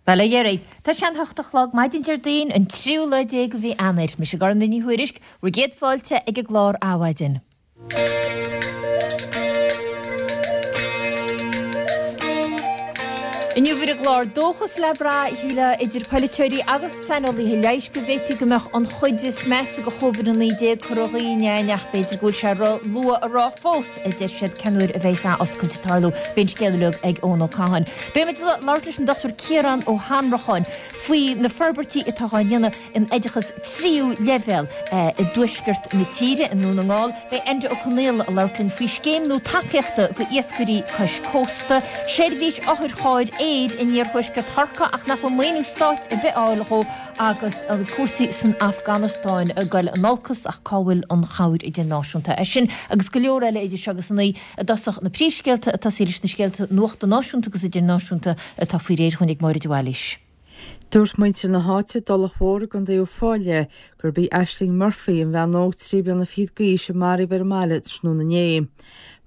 Bhuel, a dheiridh, tá sé an hocht a chlog maidin Déardaoin, an tríú lá déag de mhí Eanáir. Mise Gormfhlaith Ní Thuairisg, bhur gcéad fáilte ag an gclár Adhmhaidin. Inniu ar an gclár, dóchas le brath, shílfeá, idir polaiteoirí agus saineolaithe leighis go bhféadfaí go mbeadh an chuid is measa de Covid-19 curtha dhínn againn ach b'fhéidir go bhfuil sé ró-luath a rá fós, a deir siad, cén uair a bheidh athoscailt ag tarlú. Beidh an scéal uilig ag Eoin Ó Catháin. Beidh muid ag labhairt leis an Dr Ciarán Ó hAnnracháin faoi na forbairtí atá á ndéanamh in oideachas tríú leibhéal i dtuaisceart na tíre, i nDún na nGall. Beidh Enda Ó Conaola ag labhairt linn faoi scéim nua tacaíochta do iascairí cois cósta, seirbhís otharchairr aeir in iarthuaisceart Chorcaí ach nach bhfuil maoiniú stáit ar bith á fháil dhó agus cúrsaí san Afganastáin ag goil in olcas ach cá bhfuil an chabhair idirnáisiúnta? É sin agus go leor eile idir seo agus a naoi i dtosach na príomhscéalta ag tosaí leis na scéalta nuachta náisiúnta agus idirnáisiúnta atá faoi réir dhúinn ag Máire de Bhailís. Dúirt muintir na háite i dTulach Mhór i gContae Uíbh Fhailí gurb í Aisling Murphy, an bhean óg 23 bliana d'aois a maraíodh ar an mbaile tráthnóna inné.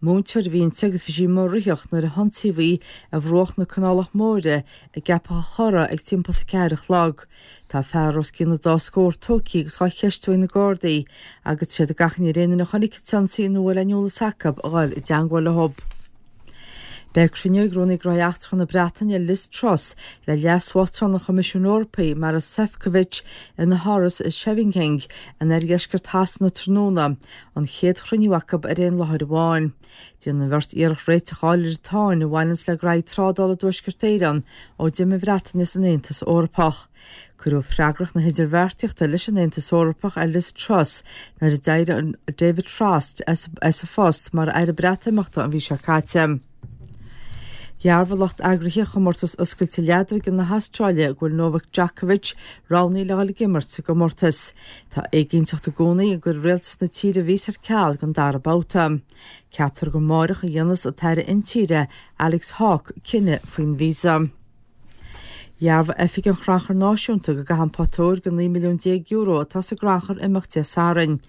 Múinteoir a bhí inti agus bhí sí amuigh ag ritheacht nuair a hionsaíodh í ar bhruach na Canálach Móire i gCeapach a' Chorra ag timpeall is a ceathair a chlog. Tá fear os cionn an dá scór tógtha agus dhá cheistiú ag na Gardaí agus tá siad ag achainí ar aon duine a chonaic an t-ionsaí nó a bhfuil aon eolas acu a dhul i dteangmháil leo. Beidh cruinniú ag Rúnaí Gnóthaí Eachtracha na Breataine, Liz Truss, le Leas-Uachtarán an Choimisiúin Eorpaigh, Maros Sefcovic, ina háras i Scheveningen in oirdheisceart Shasana tráthnóna, an chéad chruinniú acu ar aon láthair amháin. Déanfaidh an bheirt iarracht réiteach a fháil ar an tsáinn a bhaineanns le graithí trádála i dTuaisceart Éireann ó d'imigh an Bhreatain as an Aontas Eorpach. Cuireadh freagracht na hidirbheartaíochta leis an Aontas Eorpach ar Liz Truss nuair a d'éirigh David Frost as a phost mar Aire Breatimeachta an mhí seo caite. Dhearbhaigh lucht eagraithe Chomórtas Oscailte Leadóige na hAstráile go bhfuil Novak Djokovic roghnaithe le dhul ag imirt sa gcomórtas. Tá éiginnteacht i gcónaí an gcuirfidh rialtas na tíre a víosa ar ceal don dara babhta. Ceaptar gur amáireach a dhéanfas an tAire Intíre, Alex Hawke, cinneadh faoin víosa. Dhearbhaigh Oifig an Chrannchuir Náisiúnta go gcaithfidh an pota óir de €19 milliún atá sa gcrannchur imeacht Dé Sathairn.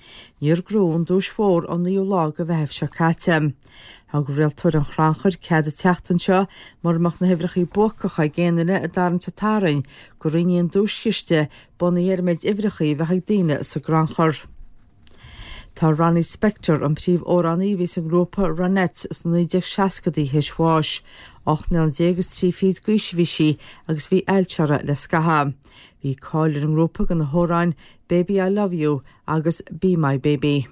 Níor gnóthaíodh an duais mhór ón naoú lá de Mheitheamh seo caite. Thug rialtóir an chrannchuir cead an tseachtain seo, mura mbeadh na huimhreacha buacacha ag aon duine i dtarraingt an tSathairn, go roinnfí an duaischiste bunaithe ar an méid uimhreacha a bheadh ag daoine sa gcrannchur. Tá Ronnie Spector, an príomhamhránaí a bhí sa ngrúpa Ronettes sna 1960idí théis bháis. 18 mbliana is trí fichid d'aois a bhí sí agus bhí ailse uirthi le scaitheamh. Bhí cáil ar an ngrúpa do na hamhráin Baby I Love You agus Be My Baby.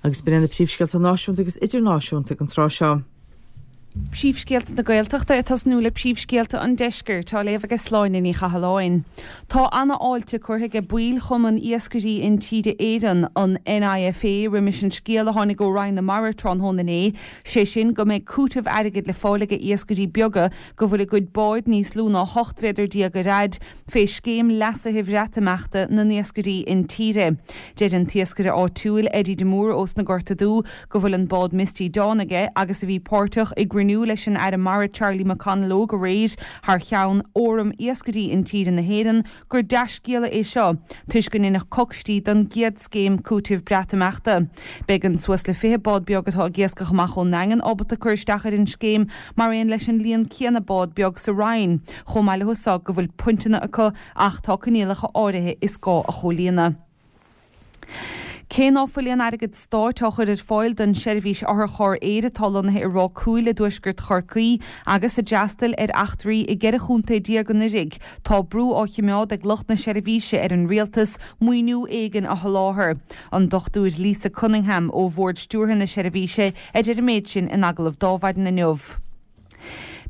Agus b'in iad na príomhscéalta náisiúnta agus idirnáisiúnta ag an tráth seo. Príomhscéalta na Gaeltachta ag tosnú le príomhscéalta an Deiscirt á léamh aige Sláine Ní Chathalláin. Tá ana-fháilte curtha aige baill Chumann Iascairí Intíre Éireann, an NIFA, roimis an scéal a tháinig ó Roinn na Mara tráthnóna inné, sé sin go mbeidh cúiteamh airgid le fáil aige iascairí beaga go bhfuil a gcuid báid níos lú ná 18 mhéadar ar fhaid fé scéim leasaithe Bhreatimeachta na n-iascairí intíre. Deir an t-iascaire áitiúil Eddie de Mórdha ós na Gorta Dubha go bhfuil an bád Misty Dawn aige agus a bhí páirteach i gcruinniú leis an Aire Mara Charlie McConalogue aréir thar cheann Fhóram Iascairí Intíre na hÉireann gur dea-scéala é seo toisc go ndéanfadh coicstí don gcéad scéim cúitimh Breatimeachta. Beidh an suas le 20 bád beag atá ag iascach amach ón nDaingean ábalta cur isteach ar an scéim mar aon leis an líon céanna bád beag sa Rinn chomh maith leo so go bhfuil pointeanna acu ach tá coinníollacha áirithe is gá a chomhlíonadh. Cé ná fuil aon airgead stáit á chur ar fáil don seirbhís otharcharr aeir atá lonnaithe i Ráth Cúil i dtuaisceart Chorcaí agus a d'fhreastail ar eachtraí i gceithre chontae déag anuraidh, tá brú á chimeád ag lucht na seirbhíse ar an rialtas maoiniú éigin a sholáthar. An Dr Lisa Cunningham ó Bhord Stiúrtha na seirbhíse a deir an méid sin in agallamh d'Adhmhaidin inniu.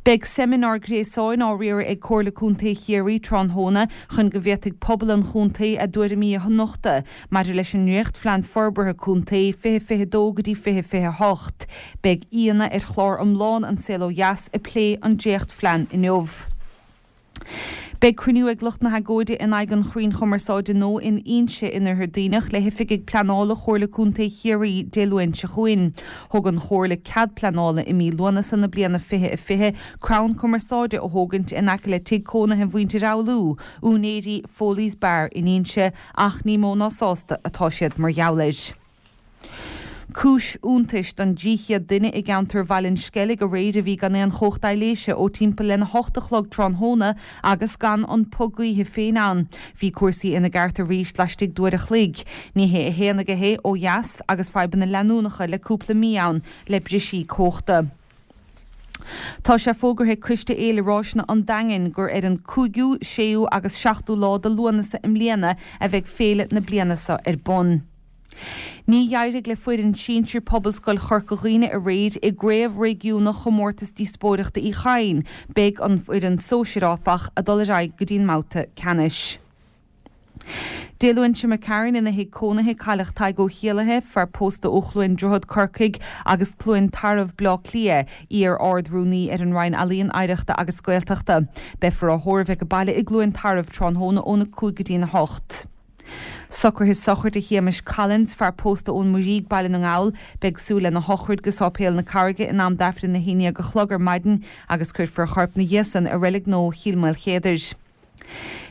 Beidh seimineár gréasáin á riaradh ag Comhairle Contae Chiarraí tráthnóna chun go bhféadfaidh pobal an chontae a dtuairimí a nochtadh maidir leis an nDréachtphlean Forbartha Contae 2022 go dtí 2028. Beidh aíonna ar chlár iomlán An Saol Ó Dheas ag plé an dréachtphlean inniu. Beidh cruinniú ag lucht na hagóide in aghaidh an chrainn chumarsáide nua in Inse in Oirthear Duibhneach le hoifigigh pleanála Chomhairle Contae Chiarraí Dé Luain seo chugainn. Thug an Chomhairle cead pleanála i mí Lúnasa na bliana 2020 crann cumarsáide a thógaint in aice le tigh cónaithe mhuintir Fhoghlú, úinéirí Foley's Bar in Inse, ach ní mó ná sásta atá siad mar gheall air. Cúis iontais don 300 duine i gceantar Bhaile an Sceilg aréir a bhí gan aon chumhacht aibhléise ó timpeall lena hocht a chlog tráthnóna agus gan an puth gaoithe féin ann. Bhí cúrsaí ina gceart arís laistigh d'uair a chloig. Ní hé a haon aige é ó dheas agus fadhbanna leanúnacha le cúpla mí ann le brisí cumhachta. Tá sé fógartha ag Coiste Fhéile Ráiseanna an Daingin gur ar an 5ú, 6ú agus 7ú lá de Lúnasa i mbliana a bheidh féile na bliana seo ar bun. Ní d'éirigh le foireann sinsir Pobalscoil Chorca Dhuibhne aréir i gcraobh réigiúnach Chomórtas Díospóireachta Uí Chadhain. Beidh an fhoireann sóisir, áfach, ag dul ar aghaidh go dtí an mbabhta ceannais. Dé Luain seo imigh tharainn ina thigh cónaithe cailleadh Tadhg Ó Héallaithe, fear pósta ó Chluain Droichead, Corcaigh, agus Cluain Tarbh, Bleá Cliath, iar-Ard-Rúnaí ar an Roinn Ealaíon, Oidhreachta agus Gaeltachta. Beifear á thórramh ag baile i gCluain Tarbh tráthnóna óna 5 go dtí'n 8. Socruithe sochraide Shéamais Collins, fear pósta ón Muirígh, Baile na nGall. Beidh súil lena shochraid go Sáipéal na Carraige in am d'Aifreann a haon dhéag a chlog ar maidin agus cuirfear a chorp 'na dhiaidh san i Reilig Nua Chill Maoilchéadair.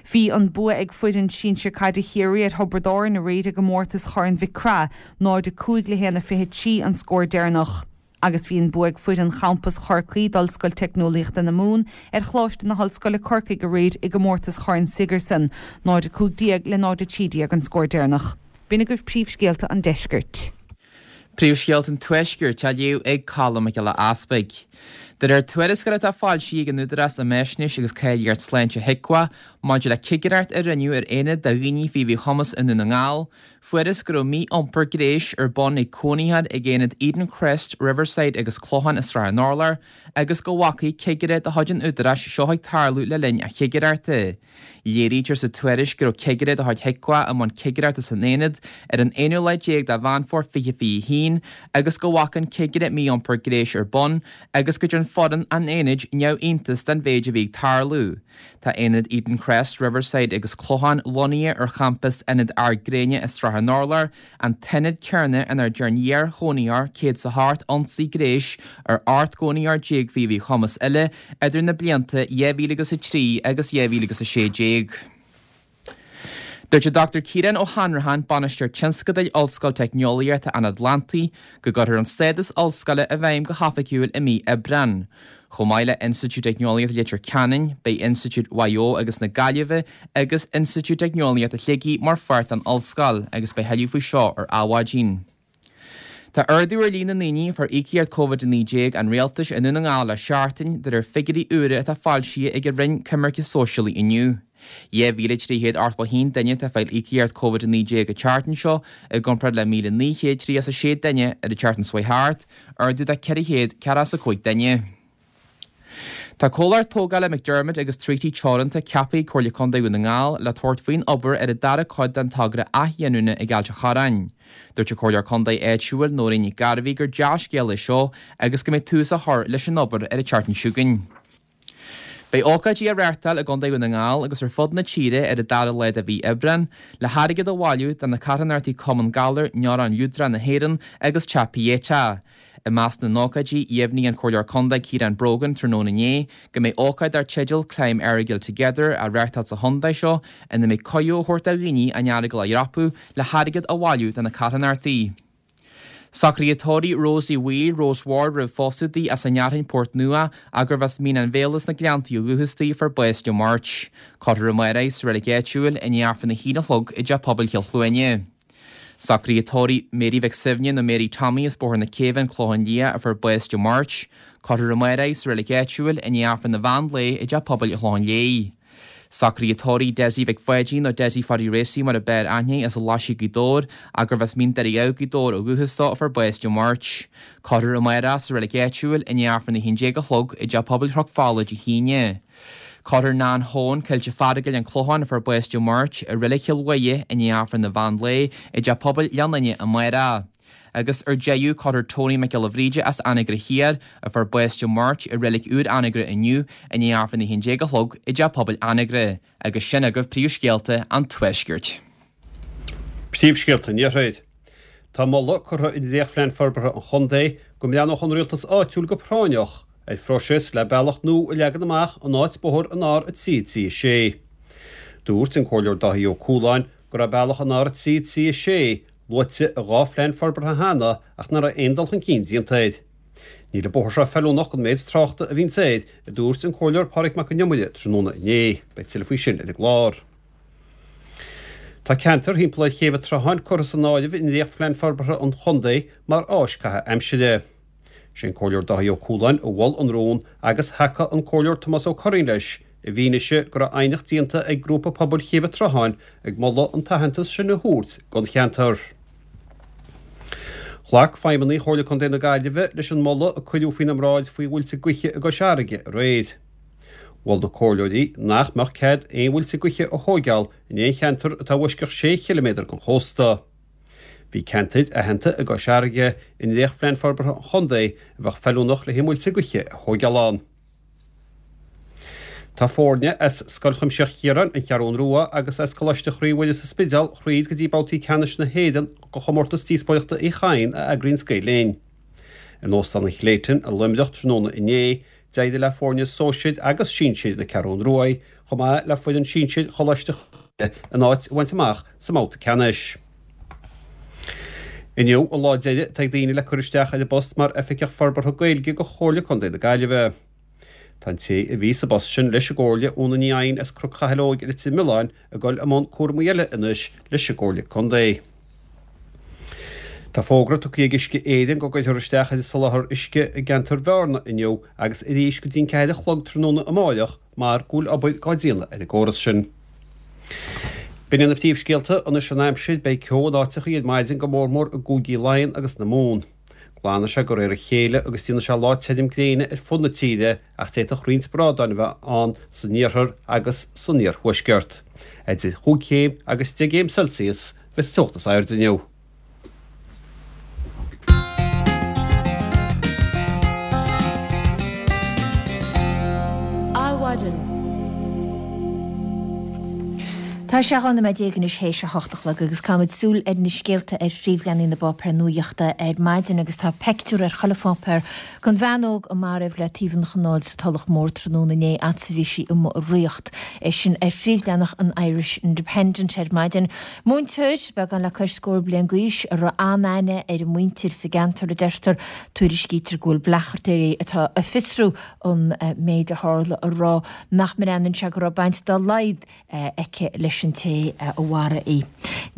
Bhí an bua ag foireann sinsir caide Chiarraí ar Thiobraid Árann aréir i gcomórtas Chorn Mhic Craith, 0-5 le 1-23 an scór deireanach. Agus bhí an bua ag foireann champas Chorcaí d'Ollscoil Teicneolaíochta na Mumhan ar Choláiste na hOllscoile Corcaigh aréir i gcomórtas Chorn Sigerson, 0-15 le 0-13 an scór deireanach. B'in agaibh príomhscéalta an deiscirt. Príomhscéalta an Tuaiscirt á léamh ag Colm Mac Giolla Easpaig. De réir tuarascáil atá foilsithe ag an Údarás um Fhaisnéis agus Cáilíocht Sláinte HIQA maidir le cigireacht a rinneadh ar aonad do dhaoine faoi mhíchumas i nDún na nGall, fuarthas go raibh mí-iompar gnéis ar bun ag cónaitheoir ag aonaid Eden Crest, Riverside agus Clochán i Srath an Urláir agus go bhfaca cigire de chuid an Údaráis seo ag tarlú le linn a chigireachta. Léirítear sa tuairisc go raibh cigire de chuid HIQA i mbun cigireachta san aonad ar an aonú lá déag de Mheán Fómhair 2021 agus go bhfaca an cigire mí-iompar gnéis ar bun agus go dtearn foireann an aonaid neamhiontas den mhéid a bhí ag tarlú. Tá aonaid Eden Crest, Riverside agus Clochán lonnaithe ar champas Ionad Ard Gréine i Srath an Urláir, an t-ionad céanna inar dearn iar-chónaitheoir 108 ionsaí gnéis ar 18 gcónaitheoir faoi mhíchumas eile idir na blianta 2003 agus 2016. Dúirt an Dr Ciarán Ó hAnnracháin, Bainisteoir Tionscadail Ollscoil Teicneolaíochta an Atlantaigh, go gcuirfear an stádas ollscoile i bhfeidhm go hoifigiúil i mí Aibreán. Chomh maith le Institiúid Teicneolaíochta Leitir Ceanainn, beidh Institiúid Mhaigh Eo agus na Gaillimhe agus Institiúid Teicneolaíochta Shligigh mar pháirt den ollscoil agus beidh thuilleadh faoi seo ar Adhmhaidin. Tá ardú ar líon na ndaoine a fuair íocaíocht Covid-19 an Rialtais i nDún na nGall le seachtain, de réir figiúirí úra atá foilsithe ag an Roinn Coimirce Sóisialaí inniu. 2,381 duine atá ag fáil íocaíocht Covid-19 an tseachtain seo, i gcomparáid le 1,936 duine ar an tseachtain seo chuaigh thart, ardú de 445 duine. Tá comhlacht tógála McDermott agus Treaty Teoranta ceaptha ag Comhairle Contae Dhún na nGall le tabhairt faoin obair ar an dara cuid den togra athghiniúna ag Ailt an Chorráin. Dúirt an Comhairleoir Contae áitiúil Nóirín Nic Gairbhí gur dea-scéal é seo agus go mbeidh tús á chur leis an obair ar an tseachtain seo chugainn. Beidh ócáidí á reáchtáil i gContae Dhún na nGall agus ar fud na tíre ar an dara lá de mhí Aibreán le hairgead a bhailiú do na carthanachtaí Cumann Galar Neurón Liúdrach na hÉireann agus Teach Pieta. I measc na n-ócáidí, dheimhnigh an Comhairleoir Contae Ciarán Brogan tráthnóna inné go mbeidh ócáid dar teideal Climb Errigal Together á reáchtáil sa chontae seo ina mbeidh cuireadh á thabhairt do dhaoine an Earagail a dhreapadh le hairgead a bhailiú do na carthanachtaí. Socruithe tórraimh Rosie Wheel, Rose Ward roimh phósadh di as an nFhearthainn Port Nua ach gurbh as Mín an Bhéala sna Gleanntaí ó dhúchas di a fuair bás Dé Máirt. Cuirfear amárach í sa reilig áitiúil i ndiaidh Aifreann a haon a chlog i dTeach Pobail Chill Chluaine. Socruithe tórraimh Mary Mhic Suibhne nó Mary Tommy as Bóthar na Céibhe, An Clochán Liath, a fuair bás Dé Máirt. Cuirfear amárach í sa reilig áitiúil i ndiaidh Aifreann an mheán lae i dTeach Pobail an Chlocháin Léith. Socruithe tórraimh Dessie Mhic Pháidín nó Dessie Pháidí Racy mar a b'fhearr aithne air as an Laisigh Gaoth Dobhair ach gurbh as Mín Doire Dhamh Gaoth Dobhair ó dhúchas dó a fuair bás Dé Máirt. Cuirfear amárach sa reilig áitiúil i ndiaidh Aifreann 11 a chlog i dTeach Pobail Chnoc Fola Dé hAoine. Cuirfear Nan Choen, Coillte Fearagail, An Clochán, a fuair bás Dé Máirt, i Reilig Chill Mhuire i ndiaidh Aifreann an mheán lae i dTeach Pobail Ghleann Fhinne amárach. Agus ar deireadh, cuirfear Tony Mac Giolla Bhríde as Anagaire Thiar, a fuair bás Dé Máirt, i Reilig Úr Anagaire inniu i ndiaidh Aifreann 11 a chlog i dTeach Pobail Anagaire. Agus sin agaibh príomhscéalta an Tuaiscirt. Príomhscéalta an Iarthair. Tá moladh curtha i ndréachtphlean forbartha an chontae go mbreathnódh an rialtas áitiúil go práinneach ar phróiseas le bealach nua a leagan amach in áit bóthar an R3 3 6. Dúirt an Comhairleoir Dáithí Ó Cualáin go raibh bealach an R3 3 6. Luaite i 2 phlean forbartha cheana ach nach raibh aon dul chun cinn déanta air. Níl an bóthar seo feiliúnach don méid tráchta a bhíonns air, a dúirt an Comhairleoir Pádraig Mac Con Iomaire tráthnóna inné. Beidh tuilleadh faoi sin ar an gclár. Tá ceantar thimpeall ar Chéibh an tSrutháin curtha san áireamh i ndréachtphlean forbartha an chontae mar áis caitheamh aimsire. Sé an Comhairleoir Dáithí Ó Cualáin a mhol an rún agus thacaigh an Comhairleoir Tomás Ó Curraoin leis i bhfianaise go raibh aighneacht déanta ag Grúpa Pobail Chéibh an tSrutháin ag moladh an t-aitheantas sin a thabhairt don cheantar. Ghlac feidhmeannaigh Chomhairle Contae na Gaillimhe leis an moladh a cuireadh faoina mbráid faoi mhuilte gaoithe i gCois Fharraige aréir. Mhol na comhairleoirí nach mbeadh cead aon mhuilte gaoithe a thóigeáil in aon cheantar atá i bhfoisceacht sé chiliméadar den chósta. Bhí ceantair aitheanta i gCois Fharraige i ndréachtphlean forbartha an chontae a bheadh feiliúnach le haghaidh muilte gaoithe a thóigeáil ann. Tá foirne as Scoil Chuimsitheach Chiaráin, An Cheathrún Rua, agus as Coláiste Chroí Mhuire sa Spidéal thríd go dtí babhtaí ceannais na hÉireann de chomórtas díospóireachta Uí Chadhain a eagraíonns Gael Linn. In Óstán an Clayton i Luimneach tráthnóna inné, d'éirigh le foirne sóisir agus sinsir na Ceathrún Ruaidh, chomh maith le foireann sinsir Choláiste Chroí Mhuire a n-áit a bhaint amach sa mbabhta ceannais. Inniu an lá deiridh atá ag daoine le cur isteach ar an bpost mar Oifigeach Forbartha Gaeilge do Chomhairle Contae na Gaillimhe. Tá an té a bhí sa bpost sin leis an gComhairle, Úna Ní Eidhin as Cnoc Chathail Óig i Leitir Mealláin, ag dul i mbun cúramaí eile anois leis an gComhairle Contae. Tá fógra tugtha ag Uisce Éireann go gcuirfear isteach ar an soláthar uisce i gceantar Bhearna inniu agus arís go dtí an 4 a chlog tráthnóna amáireach mar go bhfuil obair dhá déanamh ar an gcóras sin. B'in iad na príomhscéalta, anois an aimsir, beidh ceo in áiteachaí ar maidin go mórmór i gcúigí Laighean agus na Mumhan. Glanfaidh sé de réir a chéile agus déanfaidh sé lá tirim gréine ar fud na tíre ach d'fhéadfadh roinnt brádáin a bheith ann san iarthar agus san iarthuaisceart. Idir chúig chéim agus deich gcéim Celsius a bheas an teocht is airde inniu. Adhmhaidin. Tá sé 12 nóiméad anois théis a hocht a chlog agus caithfimid súil ar na scéalta ar phríomhleathanaigh na bpáipéar nuaíochta ar maidin agus tá peictiúr ar chuile pháipéar den bhean óg a maraíodh le taobh an chanáil sa Tulach Mhór tráthnóna inné fhad 's a bhí sí amuigh ag ritheacht. É sin ar phríomhleathanach an Irish Independent ar maidin. Múinteoir, beagán le cois scór bliain d'aois, a raibh an-aithne ar a muintir sa gceantar, a deirtear. Tuairiscítear go bhfuil bleachtaire atá ag fiosrú an méid a tharla ag rá nach mbreathnaíonn sé go raibh baint dá laghad aici leis an té a mharaigh í.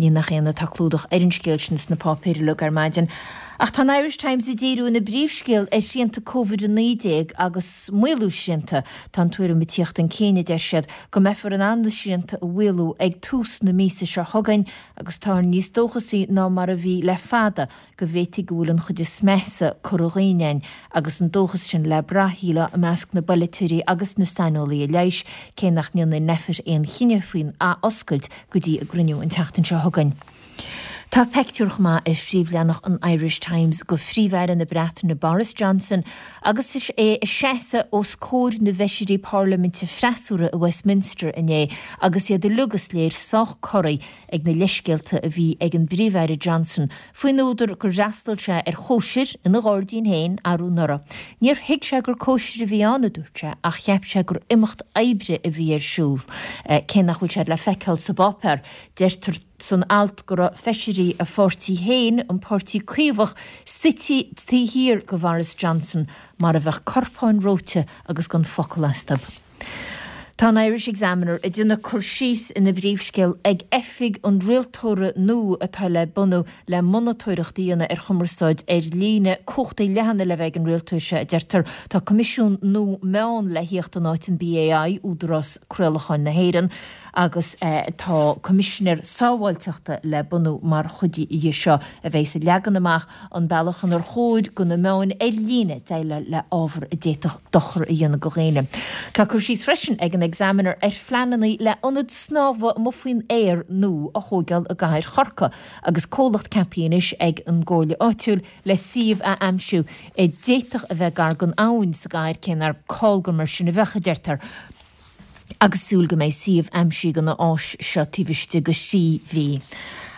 Ní nach ionadh tá clúdach ar an scéal sin sna páipéir uilig ar maidin. Ach tá an Irish Times ag díriú ina bpríomhscéal ar shrianta Covid-19 agus maolú srianta. Tá an tuairim ag tíocht chun cinn, a deir siad, go mbeifear in ann na srianta a mhaolú ag tús na míosa seo chugainn agus táthar níos dóchasaí ná mar a bhí le fada go bhféadfaí go bhfuil an chuid is measa curtha dhínn againn agus an dóchas sin le brath, shílfeá, i measc na bpolaiteoirí agus na saineolaithe leighis, cé nach ndéanfaidh Nphet aon chinneadh faoin athoscailt go dtí a gcruinniú an tseachtain seo chugainn. Tá peictiúr chomh maith ar phríomhleathanach an Irish Times de Phríomh-Aire na Breataine Boris Johnson agus é ag seasamh os comhair na bhfeisirí parlaiminte freasúra i Westminster inné agus iad uilig is léir sách corraithe ag na leithscéalta a bhí ag an bPríomh-Aire Johnson faoin údar gur fhreastail sé ar chóisir ina ghairdín féin arú anuraidh. Níor thuig sé gur cóisir a bhí ann, a dúirt sé, ach cheap sé gur imeacht oibre a bhí ar siúl. Cé nach bhfuil sé le feiceáil sa bpáipéar, deirtear san alt go raibh feisirí a pháirtí féin, an Páirtí Caomhach, suite taobh thiar de Bhoris Johnson mar a bheadh corpáin reoite agus gan focal astu. Tá an Irish Examiner ag déanamh cur síos ina bpríomhscéal ag oifig an rialtóra nua atá le bunú le monatóireacht a dhéanamh ar chumarsáid ar líne. Cumhachtaí leathana le bheith ag an rialtóir seo, a deirtear. Tá coimisiún nua meán le thíocht in áit an BAI, Údarás Craolacháin na hÉireann, agus tá coimisinéir sábháilteachta le bunú mar chuid dhe seo a bheas ag leagan amach an bealach inar chóir do na meáin ar líne déileáil le ábhar a d'fhéadfadh dochar a dhéanamh do dhaoine. Tá cur síos freisin ag an Examiner ar phleananna le ionad snámha amuigh faoin aer nua a thóigeáil i gcathair Chorcaí agus comhlacht ceaptha anois ag an gcomhairle áitiúil le suíomh a aimsiú a d'fhéadfadh a bheith gar don abhainn sa gcathair, cé nár call gur mar sin a bheadh, a deirtear. agus súil go mbeidh suíomh aimsithe don áis seo taobh istigh de thrí mhí.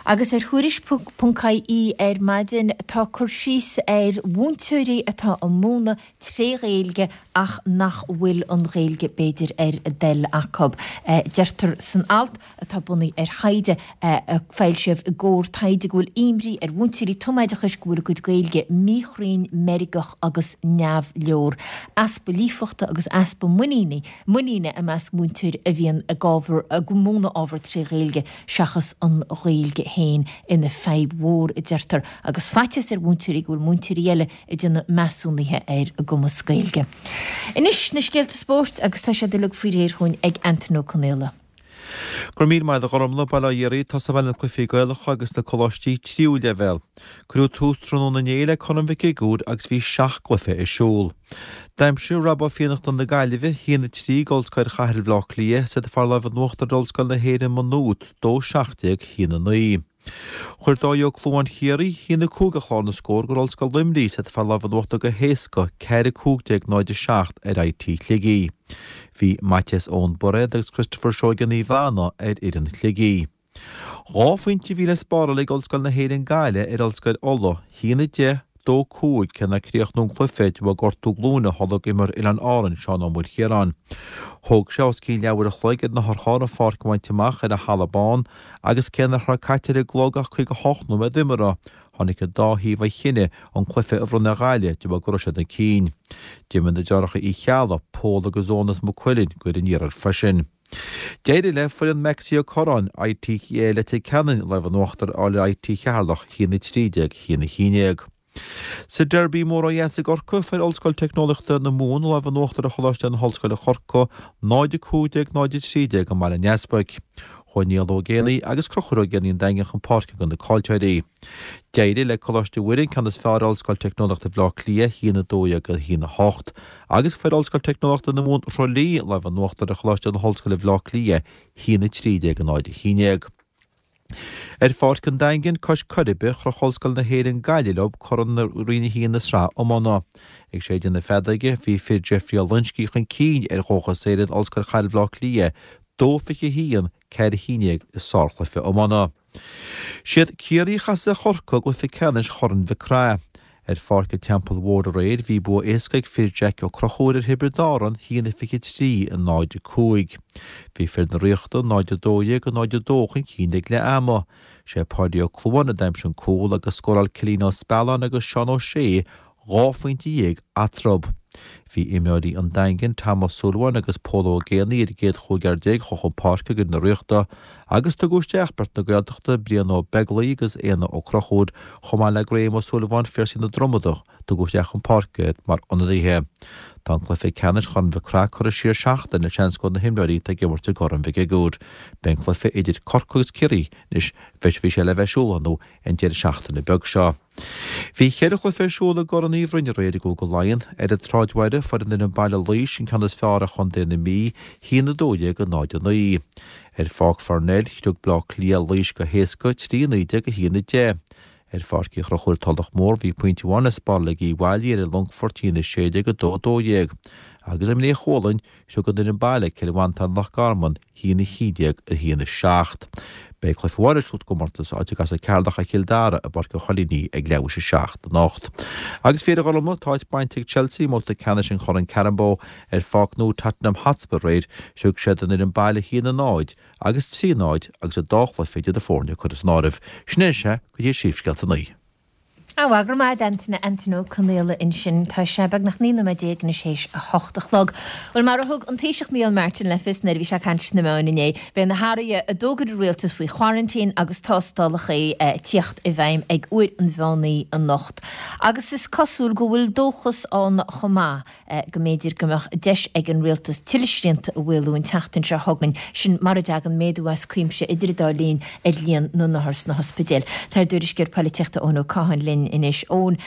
Agus ar Thuairisc ponc ie ar maidin tá cur síos ar mhúinteoirí atá ag múineadh tré Ghaeilge ach nach bhfuil an Ghaeilge b'fhéidir ar a dtoil acu. Deirtear san alt, atá bunaithe ar thaighde a foilsíodh i gComhar Taighde go bhfuil imní ar mhúinteoirí tumoideachais go bhfuil a gcuid Gaeilge míchruinn, meirgeach agus neamhleor. Easpa líofachta agus easpa muiníne muiníne i measc múinteoirí a bhíonn ag ábhar ag múineadh ábhar tré Ghaeilge seachas an Ghaeilge féin ina fadhb mhór, a deirtear, agus faitíos ar mhúinteoirí go bhfuil múinteoirí eile ag déanamh measúnaithe ar a gcumas Gaeilge. Anois na scéalta spóirt agus tá siad uilig faoi réir chugainn ag Antain Ó Conaola. Go raibh míle maith agat a Ghormfhlaith, Bail ó Dhia oraibh, tosóidh mé le na cluichí Gaelacha agus na coláistí tríú leibhéal. Cuireadh tús tráthnóna inné le Corn Mhic Shigiúir agus bhí seacht gcluiche ar siúl. D'aimsigh Rob Ó Fiannachta na Gaillimhe, 1-3 d'Ollscoil Chathair Bhaile Átha Cliath, is iad a fuair lámh in uachtar ar Ollscoil na hÉireann Maigh Nuad, 2-17, 1-9. Chuir Dáithí Ó Clúmháin Chiarraí, 1-5 ar chlár na scór d'Ollscoil Luimnigh, is iad a fuair lámh in uachtar go héasca, 4-15, 0-7 ar IT Shligigh. Bhí Maitias Eoin Bairéad agus Christopher Seoige Naomh Anna ar fhoireann Shligigh. Dhá phointe a bhí le spáráil ag Ollscoil na hÉireann Gaillimh ar Ollscoil Uladh, 1-10, 2, 5, cé nár críochnú an cluiche de bharr gortú glúine a tholg imreoir Oileáin Árann, Seán Ó Maoilchiaráin. Thóg sé os cionn leathuair a chloig ar na hurcháir an pháirc a bhaint amach ar an Halla Bán agus cé nach raibh caite ar an gclog ach 58 nóiméad imeartha, tháinig an dá thaobh ar chinneadh an cluiche a bhronnadh ar Ghaillimh de bharr go raibh siad chun cinn. D'imir na deartháireacha Uí Cheallaigh, Pól agus Eoin as Maigh Cuilinn, d'fhoireann an iarthair freisin. D'éirigh le foireann Maxie Ó Curráin, IT Leitir Ceanainn, lámh in uachtar a fháil ar IT Cheatharlach, 1-13, 1-11. Sa Derby mór ó dheas i gCorcaigh, fuair Ollscoil Teicneolaíochta na Mumhan lámh in uachtar ar Choláiste na hOllscoile Corcaigh, 0-15, 0-13 i mBaile an Easpaig. Chuaigh Niall Ó Géibheannaigh agus Conchúr Ó Géibheannaigh an Daingin chun páirce do na caillteoirí. D'éirigh le Coláiste Mhuire an ceann is fearr ar Ollscoil Teicneolaíochta Bhaile Átha Cliath, 1-12, 1-8, agus fuair Ollscoil Teicneolaíochta na Mumhan Thrá Lí lámh in uachtar ar Choláiste na hOllscoile Bhaile Átha Cliath, 1-13, 0-11. Ar Pháirc an Daingin, cois Coiribe, chroch Ollscoil na hÉireann Gaillimh leo Corn Roinn 1 na Sraithe Iomána. Ag séideadh na feadóige, bhí fir Jeffrey Ó Loingsigh chun cinn ar Dhóchas Éireann, Ollscoil Chathair Bhaile Átha Cliath, 2-21, 4-11 i sárchluiche iomána. Siad Ciarraí a chasfaidh ar Chorcaigh i gcluiche ceannais Chorn Mhic Craith. Ar Pháirc an Teampaill Mhóir aréir bhí bua éasca ag fir Jaic Ó Conchúir ar Thiobraid Árann, 1-23, 0-5. Bhí fir na Ríochta 0-12, 0-2 chun cinn ag leath ama. Sé Páidí Ó Clúmháin a d'aimsigh an cúl agus scóráil Cillian Ó Spealáin agus Seán Ó Sé 12 phointe eatarthu. Bhí imreoirí an Daingin, Tom Ó Súilleabháin agus Pól Ó Géibheannaigh ar an gcéad chúigear a chuaigh chun páirce d'fhoireann na Ríochta agus tugadh isteach beirt na Gaeltachta, Brian Ó Beaglaoich agus Éanna Ó Conchúir, chomh maith le Graham Ó Súilleabháin, Phiarsaigh na Dromoda, tugadh isteach chun páirce iad mar ionadaithe. Tá an cluiche ceannais Chorn Mhic Craith curtha siar seachtain le seans go na himreoirí atá ag imirt i gCorn Mhic Shigiúir. Beidh an cluiche idir Corcaigh agus Ciarraí anois, bhí sé le bheith ar siúl ar ndóigh an deireadh seachtaine beag seo. Bhí cheithre chluiche ar siúl i gCorn Uí Bhroin aréir i gCúige Laighean. Ar an tSráidbhaile, fuair an fhoireann baile Laois an ceann is fearr ar chontae na Mí, 1-12, 0-9. Ar Pháirc Pharnell, shroich Bleá Cliath Laois go héasca, 3-19, 1-10. Ar Pháirc Uí Chonchúir Tulach Mhór, bhí pointe amháin le spáráil ag Uíbh Fhailí ar an Longfort, 1-16, 2-12. Agus i mBré Chualann, shroich an fhoireann baile Cill Mhantáin Loch Garman, 1-11, 1-7. Beidh cluiche amháin ar siúl sa gcomórtas, áit a gcasfaidh Ceatharlach ar Chill Dara i bPáirc an Choilíní ag leathuair théis a 7 anocht. Agus fiú a Ghormfhlaith, tá áit bainte ag Chelsea i mbabhta ceannais an Choirn Carabao ar pháirc nua Tottenham Hotspur aréir, shroich siad an fhoireann baile 1-0 agus 3-0 agus an dá chluiche idir na foirne curtha san áireamh. Sin é anois é go dtí Príomhscéalta 9. Á, go raibh maith agat a Antaine, Antaine Ó Conaola ansin. Tá sé beagnach 19 nóiméad anois théis a hocht a chlog. Bhuel, mar a thug an Taoiseach Micheál Martin le fios nuair a bhí sé ag caint sna meáin inné, beidh na hathruithe a d'fhógair an rialtas faoi choraintín agus tástálacha ag tíocht i bhfeidhm ag uair an mheán oíche anocht. Agus is cosúil go bhfuil dóchas ann chomh maith go mb'fhéidir go mbeadh deis ag an rialtas tuilleadh srianta a mhaolú an tseachtain seo chugainn, sin mura dtagann méadú as cuimse idir an dá linn ar líon na n-othar sna hospidéil. Tá ár dtuairisceoir polaitíochta Eoin Ó Catháin linn anois. Eoin,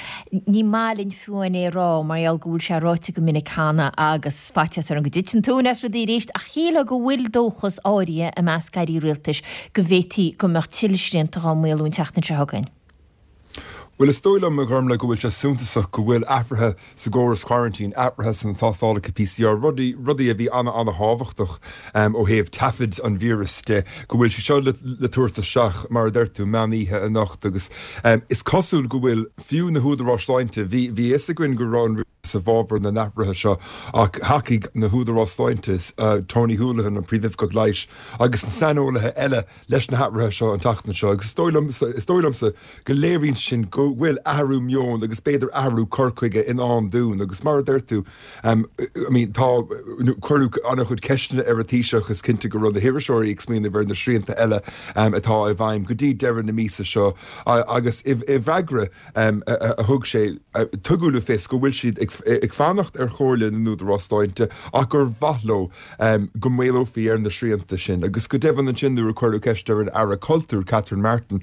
ní maith linn fiú amháin é a rá mar gheall go bhfuil sé ráite go minic cheana agus faitíos orm go dtiteann tóin as rudaí arís ach shílfeá go bhfuil dóchas áirithe i measc airí rialtais go bhféadfaí go mbeadh tuilleadh srianta dhá maolú an tseachtain seo chugainn. Bhuel, is dóigh liom, a Ghormlaith, go bhfuil sé suntasach go bhfuil athruithe sa gcóras coraintín, athruithe sna tástálacha PCR, rudaí, rudaí a bhí ana-ana-thábhachtach ó thaobh taifid an víris de, go bhfuil sé seo le, le tabhairt isteach, mar a deir tú, meán oíche anocht agus is cosúil go bhfuil fiú na húdaráis sláinte, bhí, bhí a fhios againn go raibh an rialtas i bhfabhar na n-athruithe seo ach thacaigh na húdaráis sláinte, Tony Holohan, an Príomhoifigeach Leighis agus na saineolaithe eile, leis na hathruithe seo an tseachtain seo agus is dóigh liomsa, is dóigh liomsa go léiríonn sin go bhfuil athrú meoin agus b'fhéidir athrú cur chuige i ndán dúinn agus mar a deir tú, I mean tá, cuireadh an-chuid ceisteanna ar an Taoiseach, is cinnte go raibh na hiriseoirí ag smaoineamh ar na srianta eile atá i bhfeidhm go dtí deireadh na míosa seo agus i bhfreagra a thug sé, tugadh le fios go bhfuil siad ag fanacht ar chomhairle na n-údarás sláinte ach gur mhaith leo go maolófaí ar na srianta sin. Agus go deimhin ansin nuair a cuireadh ceist ar an Aire Cultúir, Catherine Martin,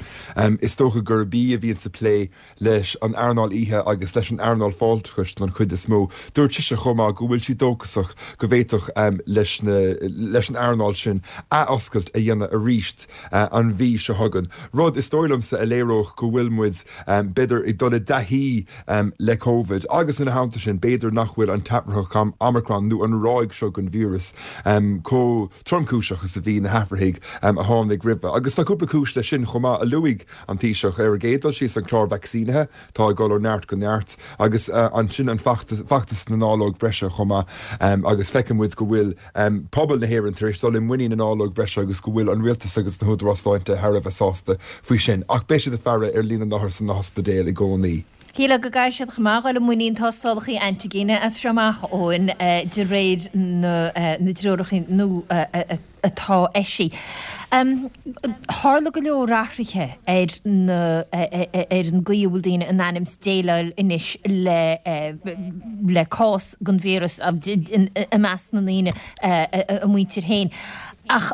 is dócha gurb í a bhíonn sa plé leis an earnáil oíche agus leis an earnáil fáilteachais don chuid is mó, dúirt sise chomh maith go bhfuil sí dóchasach go bhféadfadh leis leis an earnáil sin athoscailt a dhéanamh arís an mhí seo chugainn, rud is dóigh liomsa a léireodh go bhfuil muid b'fhéidir ag dul i dtaithí le Covid agus ina theannta sin b'fhéidir nach bhfuil an t-athraitheach Omicron nó an ráig seo den víreas chomh tromchúiseach is a bhí na hathraithigh a tháinig roimhe. Agus tá cúpla cúis leis sin chomh maith a luaigh an Taoiseach. Ar an gcéad dul síos an clár vacsaínithe atá ag dul ó neart go neart agus ansin an feachtas na ndáileog breise chomh maith agus feiceann muid go bhfuil pobal na hÉireann tar éis dul i muinín na ndáileog breise agus go bhfuil an rialtas agus na húdaráis sláinte thar a bheith sásta faoi sin. Ach beidh siad ag faire ar líon na n-othar sna hospidéil i gcónaí. Shílfeá go gcaithfidh siad chomh maith dul i muinín tástálacha antigine as seo amach, Eoin, de réir na dtreoracha nua atá eisithe. Tharla go leor athruithe ar na ar an gcaoi a bhfuil daoine in ainm is déileáil anois le le cás den víreas i measc na ndaoine, a muintir féin. Ach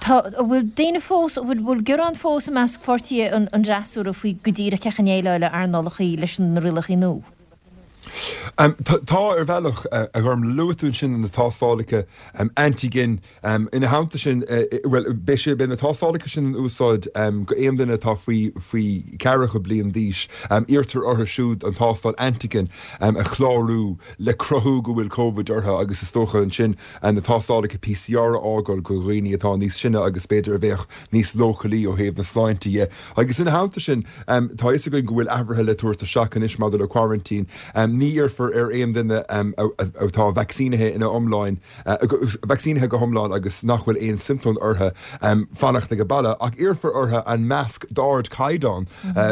tá, an bhfuil daoine fós, an bhfuil gearán fós i measc pháirtithe an fhreasúra faoi go díreach cén chaoi a ndéileáladh earnálacha leis na rialacha nua? Tá, ar bhealach, a Ghormlaith. Luaigh tú ansin na tástálacha antigen. Ina theannta sin, bhuel, beidh sé, beidh na tástálacha sin in úsáid go aon duine atá faoi, faoi cheathracha bliain d'aois. Iarrtar orthu siúd an tástáil antigen a chlárú le cruthú go bhfuil Covid orthu agus is dócha ansin na tástálacha PCR a fhágáil go dhaoine atá níos sine agus b'fhéidir a bheadh níos leochailí ó thaobh na sláinte dhe. Agus ina theannta sin, tá a fhios againn go bhfuil athruithe le tabhairt isteach anois maidir le coraintín. Ní iarrfar ar aon duine atá vacsaínithe ina iomláin, vacsaínithe go hiomlán agus nach bhfuil aon siomptóim orthu, fanacht ag baile, ach iarrfar orthu an masc d'ardchaighdeán,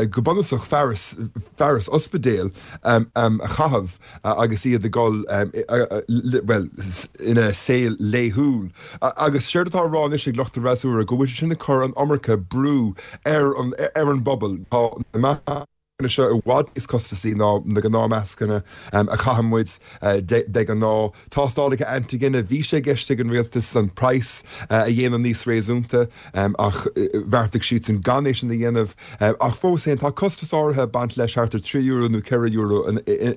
go bunúsach fearas, fearas ospidéil, a chaitheamh. agus iad ag dul, bhuel, ina saol laethúil. Agus séard atá á rá anois ag lucht an fhreasúra, go bhfuil sé sin ag cur an iomarca brú ar an, ar an bpobal. Tá na mascanna seo i bhfad níos costasaí ná na gnáthmhascanna a chaitheann muid de ghnáth. Tástálacha antigine, bhí sé i gceist ag an rialtas an praghas a dhéanamh níos réasúnta ach bheartaigh siadsan gan é sin a dhéanamh. Ach fós féin, tá costas áirithe ag baint leis, thart ar €3 nó €4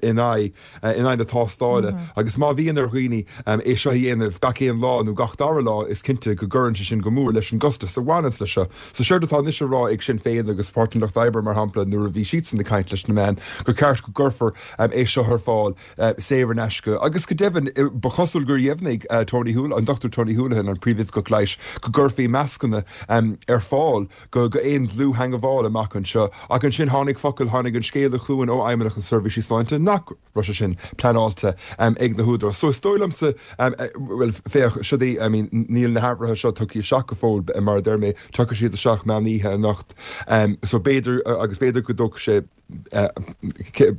in aghaidh in aghaidh na tástála. Agus má bhíonn ar dhaoine é seo a dhéanamh gach aon lá nó gach dara lá, is cinnte go gcuireann sé sin go mór leis an gcostas a bhaineanns leis seo. So séard atá anois á rá ag Sinn Féin agus Páirtí an Lucht Oibre, mar shampla, nuair a bhí siadsan ag caint leis na meáin, gur ceart go gcuirfear é seo ar fáil saor in aisce. Agus go deimhin, ba chosúil gur dheimhnigh Tony Holohan, an Dr Tony Holohan, an Príomhoifigeach Leighis, go gcuirfí mascanna ar fáil go aon dlúth-theangabháil amach anseo. Ach ansin tháinig focal, tháinig an scéala chugainn ó Fheidhmeannacht na Seirbhísí Sláinte nach raibh sé sin pleanáilte ag na húdaráis. So is dóigh liomsa, bhuel, féach, siod í, I mean, níl na hathruithe seo tugtha isteach go fóill, mar a deir mé, tiocfaidh siad isteach meán oíche anocht. So b'fhéidir, agus b'fhéidir go dtógfaidh sé,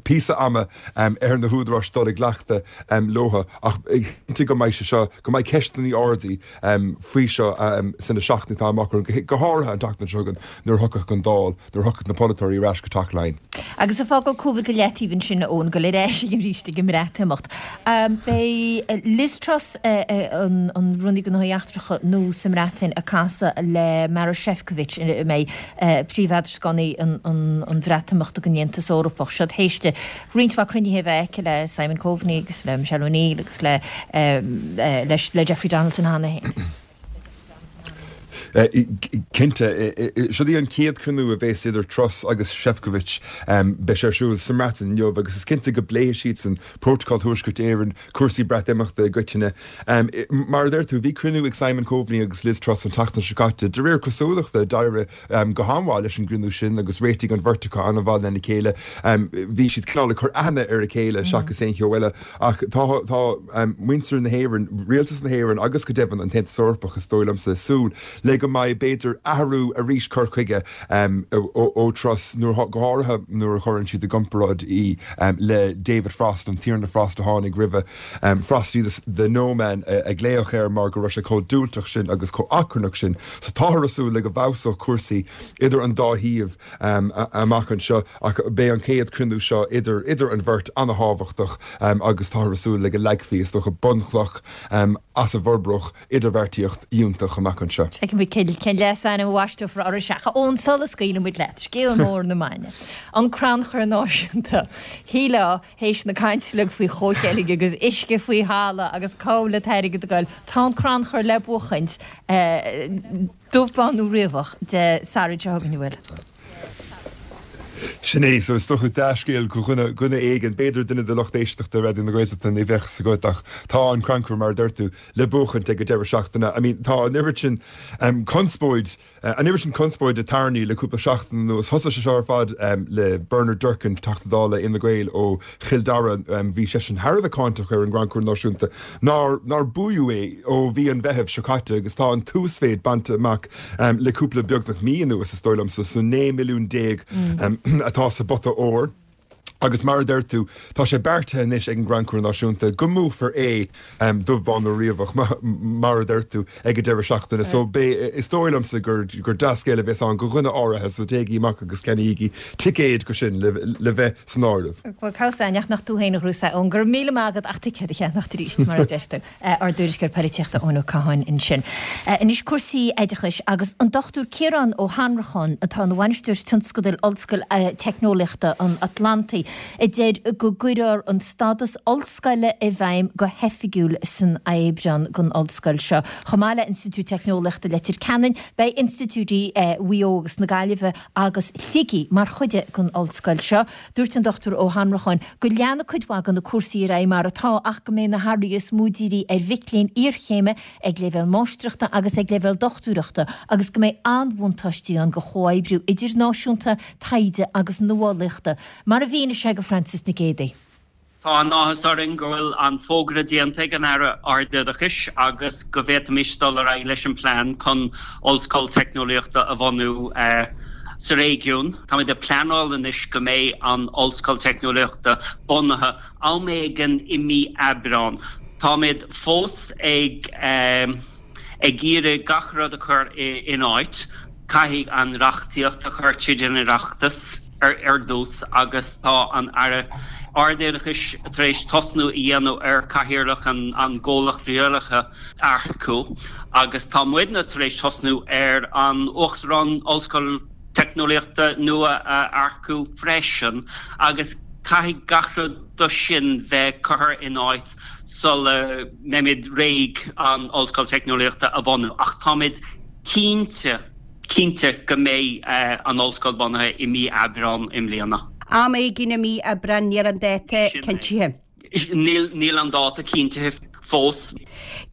píosa ama ar na húdaráis dul i gcleachtadh leo ach cinnte go mbeidh sé seo, go mbeidh ceisteanna ardaithe faoi seo sna seachtainí atá amach romhainn, go háirithe an tseachtain seo chugainn nuair a thiocfaidh an Dáil, nuair a thiocfaidh na polaiteoirí ar ais go Teach Laighean. Agus ag fágáil Covid go leataobh ansin, a Eoin, dul ar ais arís ag an mBreatimeacht. Beidh Liz Truss, an Rúnaí Gnóthaí Eachtracha nua sa mBreatain, ag casadh le Maroš Šefčovič, a mbeidh príomh-eadrascánaí an Bhreatimeachta den Aontas Eorpach. Seo théis di roinnt mhaith cruinnithe a bheith aici le Simon Coveney agus le Michelle O'Neill agus le Jeffrey Donaldson cheana féin. Cinnte. Siod í an chéad chruinniú a bhéas idir Truss agus Šefčovič. Beidh sé ar siúl sa mBreatain inniu agus is cinnte go bpléifidh siadsan Prótacal Thuaisceart Éireann, cúrsaí Breatimeachta i gcoitinne. Mar a deir tú, bhí cruinniú ag Simon Coveney agus Liz Truss an tseachtain seo caite. De réir cosúlachta, d'éirigh go han-mhaith leis an gcruinniú sin agus réitigh an bheirt acu an-mhaith lena chéile. Bhí siad cineál ag cur aithne ar a chéile seachas aon cheo eile. Ach tá tá muintir na hÉireann, rialtas na hÉireann agus go deimhin an tAontas Eorpach is dóigh liomsa ag súil le go mbeidh b'fhéidir athrú arís cur chuige ó Truss nuair go háirithe nuair a chuireann siad i gcomparáid í le David Frost, an Tiarna Frost a tháinig roimhe. Frosty the No Man a glaodh air mar go raibh sé chomh diúltach sin agus chomh achrannach sin. So táthar ag súil le go bhfeabhsódh cúrsaí idir an dá thaobh amach anseo ach beidh an chéad chruinniú seo idir idir an bheirt an-thábhachtach agus táthar ag súil le go leagfaí is dócha bunchloch as a bhforbródh idirbheartaíocht fhiúntach amach anseo. Feicfidh muid cén leasainm a bhaisteofar orthu. A Eoin, sula scaoileann muid leat, scéal mór na maidine, an Crannchur Náisiúnta. Shílfeá, théis na cainte uilig faoi chomhcheilg agus uisce faoi thalamh agus cá bhfuil an t-airgead ag goil, tá an crannchur le buachaint, dubh bán nó riabhach, Dé Sathairn seo chugainn, an bhfuil? Sin é, so is dócha dea-scéal do dhuine, dhuine éigin, b'fhéidir duine de lucht éisteachta Raidió na Gaeltachta, ní bheadh 'fhios agat ach tá an crannchur, mar a deir tú, le buachaint ag an deireadh seachtaine. I mean, tá an oiread sin conspóid, An oiread sin conspóide tarraingthe le cúpla seachtain anuas. Thosaigh sé seo ar fad le Bernard Durkan, Teachta Dála Fhine Gael ó Chill Dara. Bhí seisean thar a bheith cáinteach ar an gCrannchur Náisiúnta nár nár buadh é ó mhí an Mheithimh seo caite agus tá an t-uasmhéid bainte amach le cúpla beagnach mí anuas is dóigh liomsa, so 19 milliún atá sa bpota óir. Agus mar a deir tú, tá sé beartaithe anois ag an gCrannchur Náisiúnta go mbuafar é, dubh bán nó riabhach, mar a deir tú, ag an deireadh seachtaine. So beidh, is dóigh liomsa gur gur dea-scéal a bheas ann do dhuine áirithe, so téigí amach agus ceannaígí ticéid go sin le le bheith san áireamh. Bhuel, cá bhfios ach nach tú féin a ghnóthós é, Eoin. Go raibh míle maith agat ach ticéad a cheannacht arís, mar a deir tú. Ár dtuairisceoir poilitíochta Eoin Ó Catháin ansin. Anois cúrsaí oideachais agus an Dr Ciarán Ó hAnnracháin atá ina bhainisteoir tionscadail Ollscoil Teicneolaíochta an Atlantaigh a deir go gcuirfear an stádas ollscoile i bhfeidhm go hoifigiúil san Aibreán don ollscoil seo. Chomh maith le Institiúid Teicneolaíochta Leitir Ceanainn beidh institiúidí Mhaigh Eo agus na Gaillimhe agus Shligigh mar chuid den ollscoil seo. Dúirt an Dr Ó hAnnracháin go leanfaidh cuid mhaith de na cúrsaí ar aghaidh mar atá ach go mbeidh na hathruithe is mó dírithe ar mhic léinn iarchéime ag leibhéal máistreachta agus ag leibhéal dochtúireachta agus go mbeidh an-bhuntáistí ann do chomhoibriú idirnáisiúnta, taighde agus nuálaíochta, mar a mhínigh sé do Frances Nic Géadaigh. Tá an-áthas orainn go bhfuil an fógra déanta ag an Aire Ardoideachais agus go bhféadfaimis dul ar aghaidh leis an bplean chun Ollscoil Teicneolaíochta a bhunú sa réigiún. Táimid ag pleanáil anois go mbeidh an Ollscoil Teicneolaíochta bunaithe am éigin i mí Aibreán. Táimid fós ag ag iarraidh gach rud a chur in áit. Caithfidh an reachtaíocht a chur tríd an Oireachtas. ar dtús agus tá an Aire Ardoideachais tar éis tosnú a dhéanamh ar Chathaoirleach an gcomhlacht rialaithe a earcú agus tá muidne tar éis tosnú ar an Uachtarán Ollscoil Teicneolaíochta nua a earcú freisin agus caithfidh gach rud de sin bheith curtha in áit sula mbeimid réidh an Ollscoil Teicneolaíochta a bhunú ach táimid cinnte cinnte go mbeidh an ollscoil bunaithe i mí Aibreán i mbliana. Am éigin i mí Aibreán, níl an dáta cinntithe. Níl, níl an dáta cinntithe fós.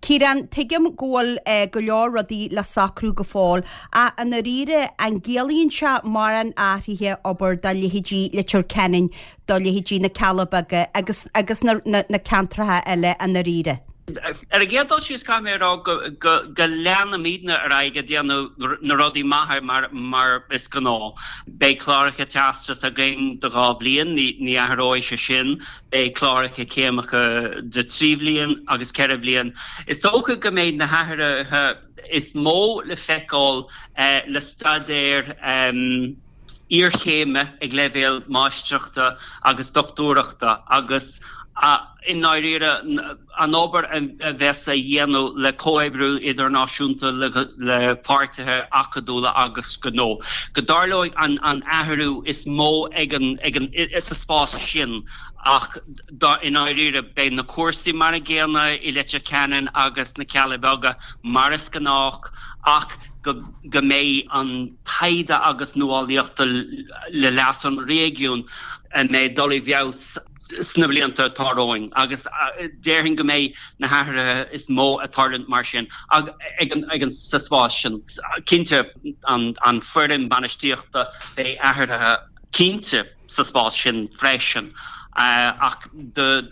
Ciarán, tuigim go bhfuil go leor rudaí le socrú go fóill, ach i ndáiríre, an gciallaíonn sé mórán athraithe abair do leithéidí Leitir Ceanainn, do leithéidí na Cealla Beaga agus agus na na ceantracha eile i ndáiríre? Ar an gcéad dul síos, caithfidh mé a rá go go leanfaimidne ar aghaidh ag déanamh na rudaí maithe mar mar is gnáth. Beidh cláracha teastas againn de dhá bhliain, ní ní athróidh sé sin. Beidh cláracha céimeacha de thrí bhliain agus ceithre bhliain. Is dócha go mbeidh na hathruithe is mó le feiceáil le staidéir iarchéime ag leibhéal máistreachta agus dochtúireachta agus. I ndáiríre, an obair a bheas á dhéanamh le comhoibriú idirnáisiúnta le páirtithe acadúla agus gnó, go dtarlóidh an athrú is mó ag an, sa spás sin ach i ndáiríre beidh na cúrsaí mar an gcéanna i Leitir Ceanainn agus sna Cealla Beaga mar is gnách ach go mbeidh an taighde agus nuálaíochta le leas an réigiúin a mbeidh dul i bhfeabhas sna blianta atá romhainn agus déarfainn go mbeidh na hathruithe is mó ag tarlúint mar sin ag an sa spás sin. Cinnte an foireann bainistíochta beidh athruithe cinnte sa spás sin freisin ach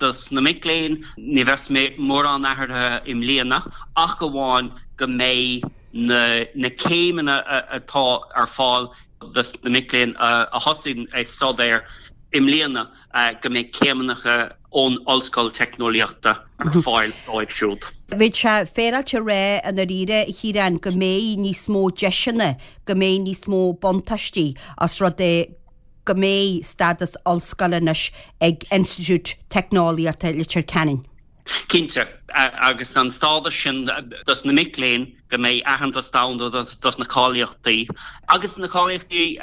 dos na mic léinn ní bheas mórán athruithe i mbliana ach amháin go mbeidh na céimeanna atá ar fáil dos na mic léinn a thosaíonn ag staidéar i mbliana go mbeidh céimeanna ón Ollscoil Teicneolaíochta ar fáil dóibh siúd. Bheadh sé féaráilte a rá i ndáiríre, a Chiaráin, go mbeidh níos mó deiseanna, go mbeidh níos mó buntáistí os rud é go mbeidh stádas ollscoile anois ag Institiúid Teicneolaíochta Leitir Ceanainn. Cinnte, agus an stádas sin dos na mic léinn, go mbeidh aitheantas domhanda dos na cáilíochtaí, agus na cáilíochtaí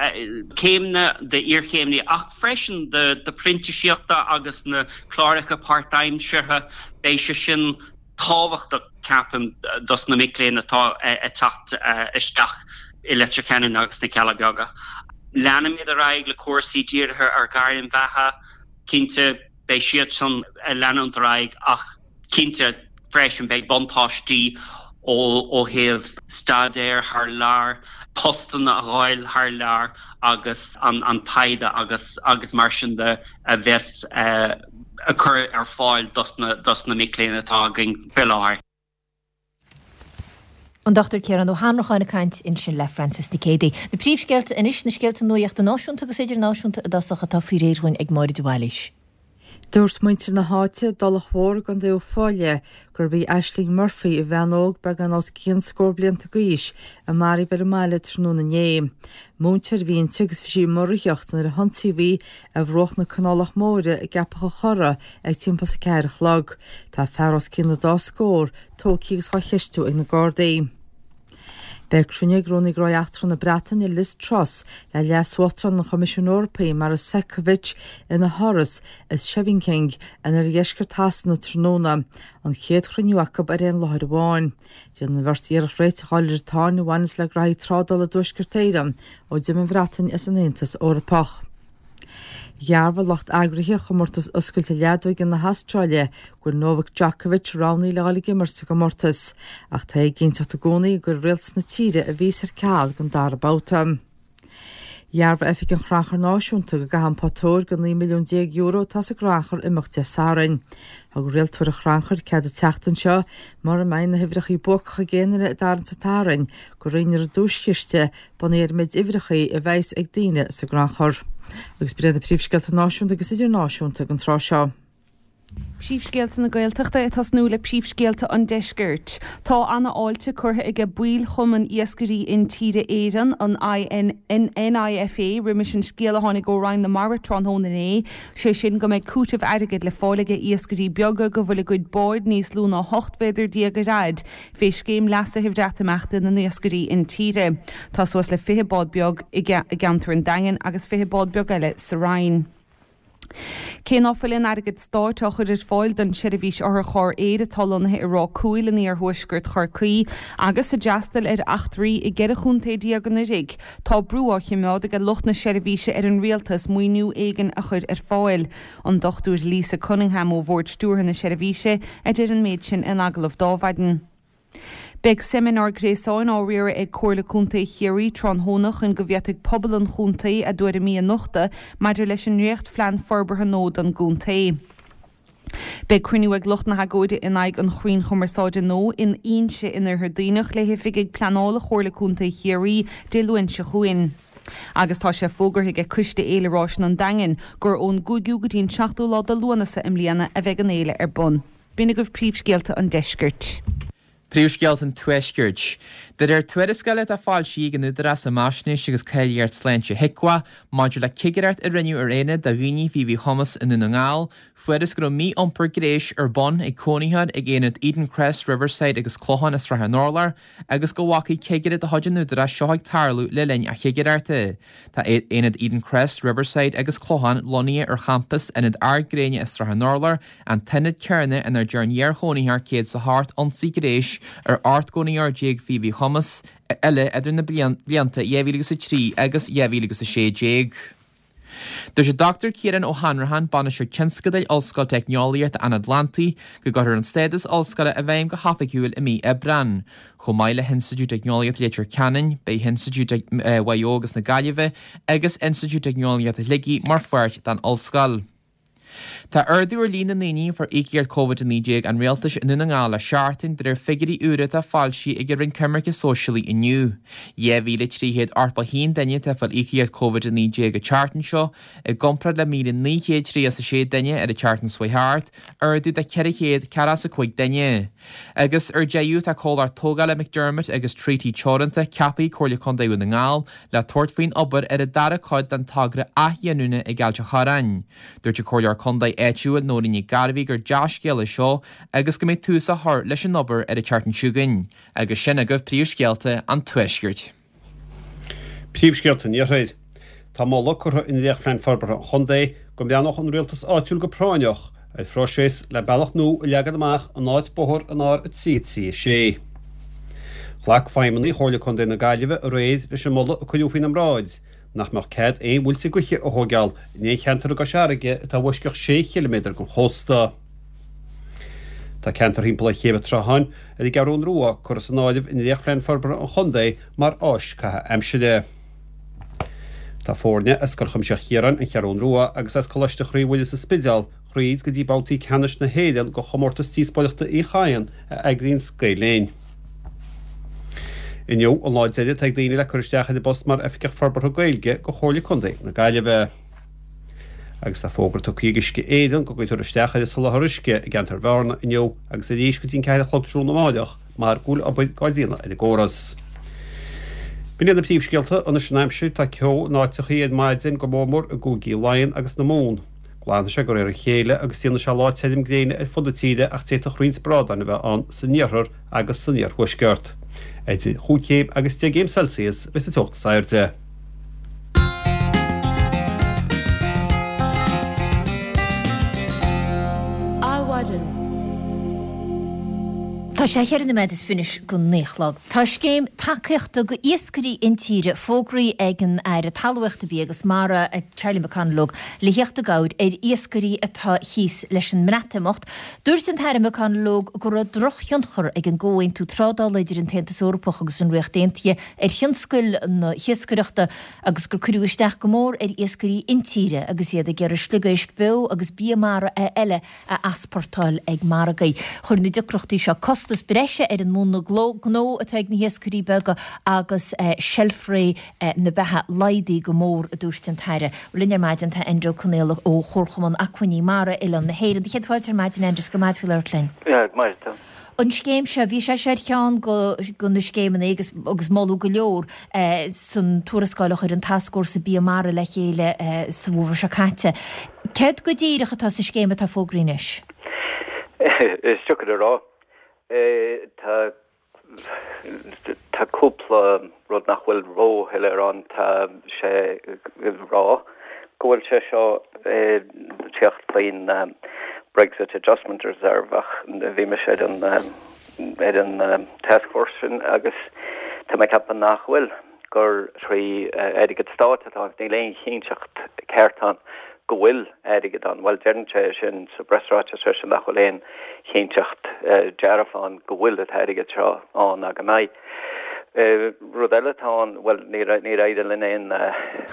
céimeanna d'iarchéimní ach freisin do phrintíseachta agus na cláracha páirtaimseartha, beidh sé sin tábhachtach, ceapaim, dos na mic léinn atá ag teacht isteach i Leitir Ceanainn agus sna Cealla Beaga. Leanfaimid ar aghaidh le cúrsaí dírithe ar ghairm bheatha, cinnte. Beidh siad san ag leanúint ar aghaidh ach cinnte freisin beidh buntáistí ó thaobh staidéir thar lear, postanna a fháil thar lear agus an taighde agus agus mar sin de a bheas á cur ar fáil dos na mic léinn atá againn faoi láthair. An Dr Ciarán Ó hAnnracháin ag caint ansin le Frances Nic Géadaigh. Na príomhscéalta anois, na scéalta nuachta náisiúnta agus idirnáisiúnta i dtosach atá faoi réir dhúinn ag Máire de Bhailís. Dúirt muintir na háite, i dTulach Mhór i gContae Uíbh Fhailí, gurb í Aisling Murphy, an bhean óg beagán os cionn scór blianta d'aois, a maraíodh ar an mbaile tráthnóna inné. Múinteoir a bhí inti agus bhí sí ag rothaíocht nuair a hionsaíodh í ar bhruach na Canálach Móire i gCeapach an Chorra ag timpeall is a ceathair a chlog. Tá fear os cionn an dá scór tógtha agus á cheistiú ag na Gardaí. Beidh cruinniú ag Rúnaí Gnóthaí Eachtracha na Breataine, Liz Truss, le Leas-Uachtarán an Choimisiúin Eorpaigh, Maros Sefcovic, ina háras i Scheveningen in oirdheisceart Shasana tráthnóna, an chéad chruinniú acu ar aon láthair amháin. Déanfaidh an bheirt iarracht réiteach a fháil ar an tsáinn a bhaineas le graithí trádála i dTuaisceart Éireann ó d'imigh an Bhreatain as an Aontas Eorpach. Dhearbhaigh lucht eagraithe Chomórtas Oscailte Leadóige na hAstráile go bhfuil Novak Djokovic roghnaithe le dhul ag imirt sa gcomórtas, ach tá éiginnteacht i gcónaí an gcuirfidh rialtas na tíre a víosa ar ceal don dara babhta. Dhearbhaigh Oifig an Chrannchuir Náisiúnta go gcaithfidh an pota óir de €19 milliún atá sa gcrannchur imeacht Dé Sathairn. Thug rialtóir an chrannchuir cead an tseachtain seo, mura mbeidh na huimhreacha buacacha ag aon duine i dtarraingt an tSathairn, go roinnfear an duaischiste bunaithe ar an méid uimhreacha a bheas ag daoine sa gcrannchur. Agus b'in iad na príomhscéalta náisiúnta agus idirnáisiúnta don tráth seo. Príomhscéalta na Gaeltachta ag tosnú le príomhscéalta an Deiscirt. Tá ana fháilte curtha aige baill Chumann Iascairí Intíre Éireann, an NIFA, roimis an scéal a tháinig ó Roinn na Mara tráthnóna inné, sé sin go mbeidh cúiteamh airgid le fáil aige iascairí beaga go bhfuil a gcuid báid níos lú ná 18 mhéadar ar fhaid fé scéim leasaithe Bhreatimeachta na n-iascairí intíre. Tá suas le 20 bád beag i gceantar an Daingin agus 20 bád beag eile sa Rinn. Cé ná fuil aon airgead stáit á chur ar fáil don tseirbhís otharcharr aeir atá lonnaithe i Ráth Cúil in iarthuaisceart Chorcaí agus a d'fhreastail ar eachtraí i gceithre chontae déag anuraidh, tá brú á chimeád aige lucht na seirbhíse ar an rialtas maoiniú éigin a chur ar fáil. An Dr Lisa Cunningham ó Bhord Stiúrtha na seirbhíse a deir an méid sin in agallamh d'Adhmhaidin. Beidh seimineár gréasáin á riaradh ag Comhairle Contae Chiarraí tráthnóna chun go bhféadfaidh pobal an chontae a dtuairimí a nochtadh maidir leis an ndréachtphlean forbartha nua don gcontae. Beidh cruinniú ag lucht na hagóide in aghaidh an chrainn chumarsáide nua in Inse in Oirthear Duibhneach le hoifigigh pleanála Chomhairle Contae Chiarraí Dé Luain seo chugainn. Agus tá sé fógartha aige Coiste Fhéile Ráiseanna an Daingin gur ón gcúigiú go dtí an seachtú lá de Lúnasa i mbliana a bheidh an fhéile ar bun. B'in agaibh príomhscéalta an deiscirt. Príomhscéalta an tuaiscirt. De réir tuarascála atá foilsithe ag an Údarás um Fhaisnéis agus Cáilíocht Sláinte HIQA maidir le cigireacht a rinneadh ar aonad do dhaoine faoi mhíchumas i nDún na nGall, fuarthas go raibh mí-iompar gnéis ar bun ag cónaitheoir ag aonad Eden Crest, Riverside agus Clochán i Srath an Urláir agus go bhfacaidh cigire de chuid an Údaráis seo ag tarlú le linn a chigireachta. Tá Aonad Eden Crest, Riverside agus Clochán lonnaithe ar champas Ionad Ard Gréine i Srath an Urláir, an t-ionad céanna inar dearn iar-chónaitheoir 108 ionsaí gnéis ar 18 gcónaitheoir faoi mhíchumas eile idir na blianta 2003 agus 2016. Dúirt an Dr Ciarán Ó hAnnracháin, Bainisteoir Tionscadail Ollscoil Teicneolaíochta an Atlantaigh, go gcuirfear an stádas ollscoile i bhfeidhm go hoifigiúil i mí Aibreán. Chomh maith le hInstitiúid Teicneolaíochta Leitir Ceanainn, beidh Institiúid Mhaigh Eo agus na Gaillimhe agus Institiúid Teicneolaíochta Shligigh mar pháirt den ollscoil. Tá ardú ar líon na ndaoine a fuair íocaíocht Covid-19 an Rialtais i Ndún na nGall le seachtain, de réir figiúirí úra atá foilsithe ag an Roinn Coimirce Sóisialaí inniu. 2,381 duine atá ag fáil íocaíocht Covid-19 an tseachtain seo, i gcomparáid le 1,936 duine ar an tseachtain seo chuaigh thart, ardú de 445 duine. Agus ar deireadh, tá comhlacht tógála McDermott agus Treaty Teoranta ceaptha ag Comhairle Contae Dhún na nGall le tabhairt faoin obair ar an dara cuid den togra athghiniúna ag Ailt an Chorráin. Dúirt an Comhairleoir Contae áitiúil Nóirín Nic Gairbhí gur dea-scéal é seo agus go mbeidh tús á chur leis an obair ar an tseachtain seo chugainn. Agus sin agaibh príomhscéalta an Tuaiscirt. Príomhscéalta an Iarthair. Tá moladh curtha i ndréachtphlean forbartha an chontae go mbreathnódh an rialtas áitiúil go práinneach ar phróiseas le bealach nua a leagan amach in áit bóthar an R3 3 6. Ghlac feidhmeannaigh Chomhairle Contae na Gaillimhe aréir leis an moladh a cuireadh faoina mbráid nach mbeadh cead aon mhuilte gaoithe a thóigeáil in aon cheantar i gCois Fharraige atá i bhfoisceacht sé chiliméadar den chósta. Tá ceantar thimpeall ar Chéibh an tSrutháin ar an gCeathrún Rua curtha san áireamh i ndréachtphlean forbartha an chontae mar áis caitheamh aimsire. Tá foirne as Scoil Chuimsitheach Chiaráin, An Cheathrún Rua, agus as Coláiste Chroí Mhuire sa Spidéal thríd go dtí babhtaí ceannais na hÉireann de Chomórtas Díospóireachta Uí Chadhain a eagraíonns Gael Linn. Inniu an lá deiridh atá ag daoine le cur isteach ar an bpost mar Oifigeach Forbartha Gaeilge do Chomhairle Contae na Gaillimhe. Agus tá fógra tugtha ag Uisce Éireann go gcuirfear isteach ar an soláthar uisce i gceantar Bhearna inniu agus arís go dtí an 4 a chlog tráthnóna amáireach mar go bhfuil obair dhá déanamh ar an gcóras. B'in iad na príomhscéalta anois an aimsir, tá ceo in áiteachaí ar maidin go mór mór i gcúigí Laighean agus na Mumhan. Glanfaidh sé de réir a chéile agus déanfaidh sé lá tirim gréine ar fud na tíre ach d'fhéadfadh roinnt brádáin a bheith ann san iarthar agus san iarthuaisceart. Idir chúig chéim agus deich gcéim Celsius a bheas an teocht is airde. Adhmhaidin. Tá sé cheithre nóiméad is fiche go naoi a chlog. Tá scéim tacaíochta go iascairí intíre fógraithe ag an Aire Talmhaíochta, Bia agus Mara, Charlie McConalogue, le theacht i gcabhair ar iascairí atá thíos leis an mBreatimeacht. Dúirt an tAire McConalogue go raibh drochthionchar ag an gcomhaontú trádála idir an tAontas Eorpach agus an Ríocht Aontaithe ar thionscal na hiascaireachta agus gur cuireadh isteach go mór ar iascairí intíre agus iad ag iarraidh sliogéisc beo agus bia mara eile a easpórtáil ag margaí. Chuir na deacrachtaí seo costas breise ar an múnla gnó atá ag na hiascairí beaga agus seilfré na beatha laghdaithe go mór, a dúirt an tAire. Linn ar maidin tá Enda Ó Conaola ó Chomharchumann Acmhainní Mara Oileán na hÉireann. Céad fáilte ar maidin, Enda, is go raibh maith agat faoi labhairt linn. Maith. An scéim seo, bhí sé seo ar cheann de na scéimeanna agus agus moladh go leor san tuarascáil a chuir an Tascfhórsa Bia Mara le chéile sa bhfómhar seo caite. Céard go díreach atá sa scéim atá fógraithe anois? Is deacair a rá. Tá tá cúpla rud nach bhfuil róshoiléir ann. Tá sé ag rá go bhfuil sé seo ag teacht faoin Brexit Adjustment Reserve ach bhí mise ar an ar an taskforce sin agus tá mé ag ceapadh nach bhfuil, gur trí airgead stáit atá ann. Níl aon chinnteacht ceart ann go bhfuil airgead ann. Bhuel, deireann sé sin sa bpreasráiteas freisin nach bhfuil aon chinnteacht dearfa ann go bhfuil an t-airgead seo ann ná go mbeidh. Rud eile atá ann, bhuel, níor éirigh linn aon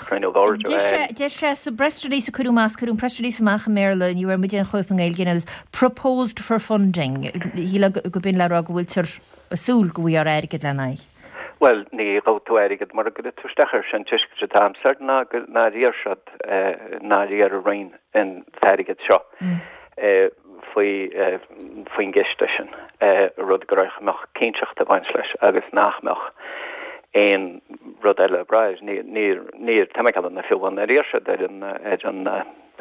chruinniú boird a fháil. Deir sé sa bpress release a cuireadh amach, cuireadh an press release amach i mBéarla, ní bhfuair muid aon chóip i nGaeilge, and proposed for funding. Shílfeá go b'in le rá go bhfuiltear ag súil go bhfaighfear airgead lena aghaidh. Bhuel, ní gheobhaidh tú airgead mura gcuirfidh tú isteach air. Sé an tuiscint atá a'msa nár iarr siad, nár iarr an Roinn an t-airgead seo. Faoi faoin gciste sin, rud go raibh mbeadh cinnteacht ag baint leis agus nach mbeadh aon rud eile ag brath air. Níor, níor, tá mé ag ceapadh na fiú amháin ar iarr siad ar an, ar an,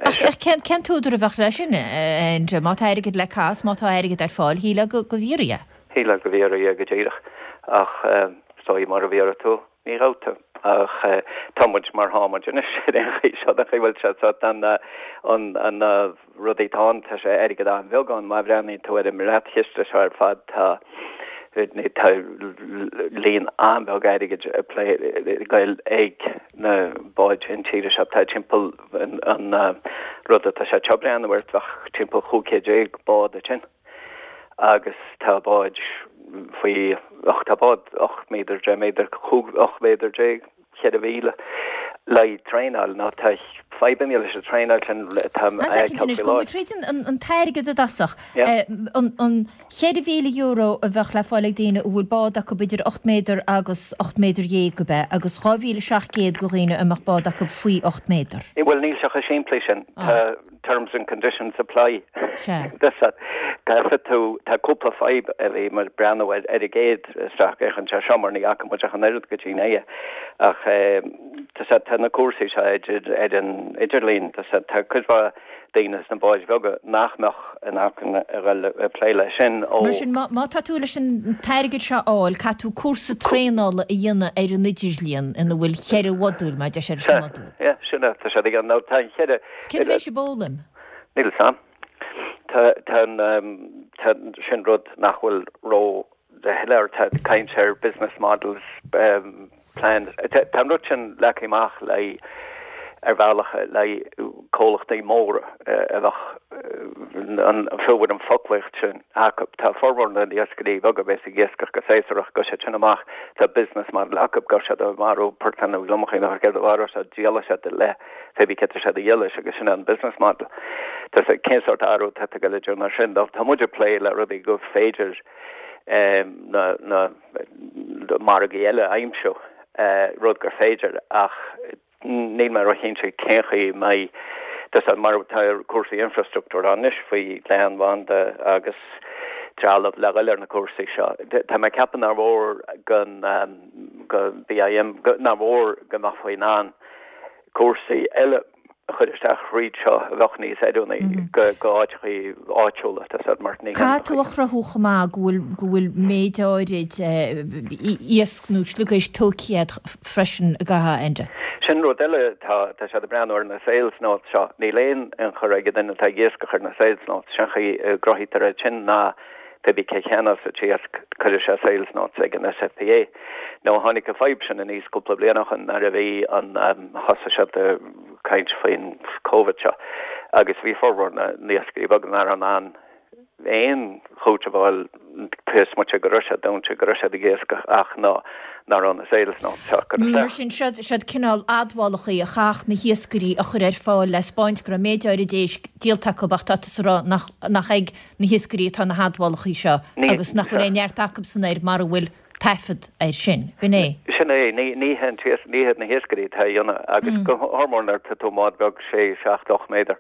Ach cén, cén t-údar a bheadh leis sin, Enda? Má tá airgead le caitheamh, má tá airgead ar fáil, shílfeá go, go bhfiafraí é. Shílfeá go bhfiafraí é go díreach. Ach is dóigh mura bhfiafraí tú, ní gheobhaidh tú. Ach tá muid mar tá muid anois ar aon chaoi, seo an chaoi a bhfuil sé. So tá an, an, an, rudaí atá ann, tá sé airgead an-bheag ann. Má bhreathnaíonn tú ar an mbreatchiste seo ar fad, tá tá líon an-bheag airgid ag plé ag goil ag na báid intíre seo. Tá timpeall an rud atá sé ag breathnú air, bheadh timpeall 15 chéad bád ansin agus tá báid faoi, ach tá bád 8 méadar, 10 méadar, 18 méadar. 4,000 le traenáil nó tá fadhbanna leis an traenáil sin tá Anois, gabhfaidh muid tríd an t-airgead i dtosach. An €4,000 a bheadh le fáil ag daoine a bhfuil bád acu idir 8 méadar agus 18 méadar ab ea, agus 2,700 do dhaoine a mbeadh bád acu faoi 8 méadar. Bhuel níl sé chomh simplí sin. Tá terms and conditions apply. Sea. Caithfidh tú, tá cúpla fadhb a bhí muid ag breathnú ar ar an gcéad isteach féachaint ar seo mar ní fhaca muid ach an oiread go dtí inné. Ach tá sé, tá na cúrsaí seo idir, ar an idirlíon, tá sé, tá cuid mhaith daoine sna báid bheaga nach mbeadh in acmhainn a dhul ag plé leis sin ó. Mar sin, má tá tú leis an t-airgead seo a fháil, caithfidh tú cúrsa traenála a dhéanamh ar an idirlíon ina bhfuil cheithre mhodúl, mar a deir siad, leis na modúil. Sea, sin é, tá sé ag an, nó tá an cheithre, Céard a bheidh sibh a fhoghlaim? Níl 'fhios a'm. Tá, tá an, tá, sin rud nach bhfuil ró shoiléir. Tá caint ar business models, plans. Tá, tá an rud sin leagtha amach le, ar bhealach le comhlachtaí móra a bheadh an, fiú an foclaíocht sin acu. Tá formhór na n-iascairí beaga a bheas ag iascach go séasúrach, gabhfaidh siad sin amach, tá business model acu, gabhfaidh siad ag marú portán nó gliomachaí nó céard a mharóidh siad, díolfaidh siad le pé bí cé tá siad a dhíol leis agus sin é an business model. Tá sé, cén sórt athrú atá ag dul idir mar sin? Tá muid ag plé le rudaí go féidir na, na margaí eile a aimsiú, rud gur féidir ach níl mé róchinnte cén chaoi a mbeidh, tá sé mar tá cúrsaí infrastruchtúir ann anois faoi leathanbhanda agus trealamh le dhul ar na cúrsaí seo. Tá mé ag ceapadh nár mhór go, go BIM, nár mhór go mbeifí in ann cúrsaí eile a chur isteach thríd seo a bheadh níos oiriúnaí go áiteachaí áitiúla, tá siad mar ní Caithfidh tú a chruthú chomh maith go bhfuil go bhfuil méid áirid iasc nó sliogéisc tógtha agat freisin i gcaitheamh Enda. Sin rud eile, tá tá siad ag breathnú ar na sales notes seo. Níl aon ionchur ag an duine atá ag iascach ar na sales notes. Sin chaoi a gcruthaítear iad sin ná Pé bí cé cheannós an t-iasc, cuirfidh sé sales notes ag an SFPA. Nó tháinig an fadhb sin aníos cúpla bliain ó shin nuair a bhí an, thosaigh siad ag caint faoin Covid seo agus bhí formhór na n-iascairí beaga nach raibh in ann aon chúiteamh a fháil cé is moite go raibh siad dúnta, go raibh siad ag iascach ach ná nach raibh na sales notes seo curtha Mar isteach. sin, siod, siod cineál admhálachaí a chaithfeadh na hiascairí a chur ar fáil le 'spáint go raibh méid áirid éisc díolta acu ach tá tusa ag rá nach, nach ag na hiascairí atá na hadmhálachaí seo agus nach bhfuil aon neart acubsan air mara bhfuil taifead air sin. B'in é. Sin é. Ní hé ní hiad na hiascairí atá á dhéanamh agus go hórmór nuair atá tú i mbád beag sé, seacht, 8 méadar,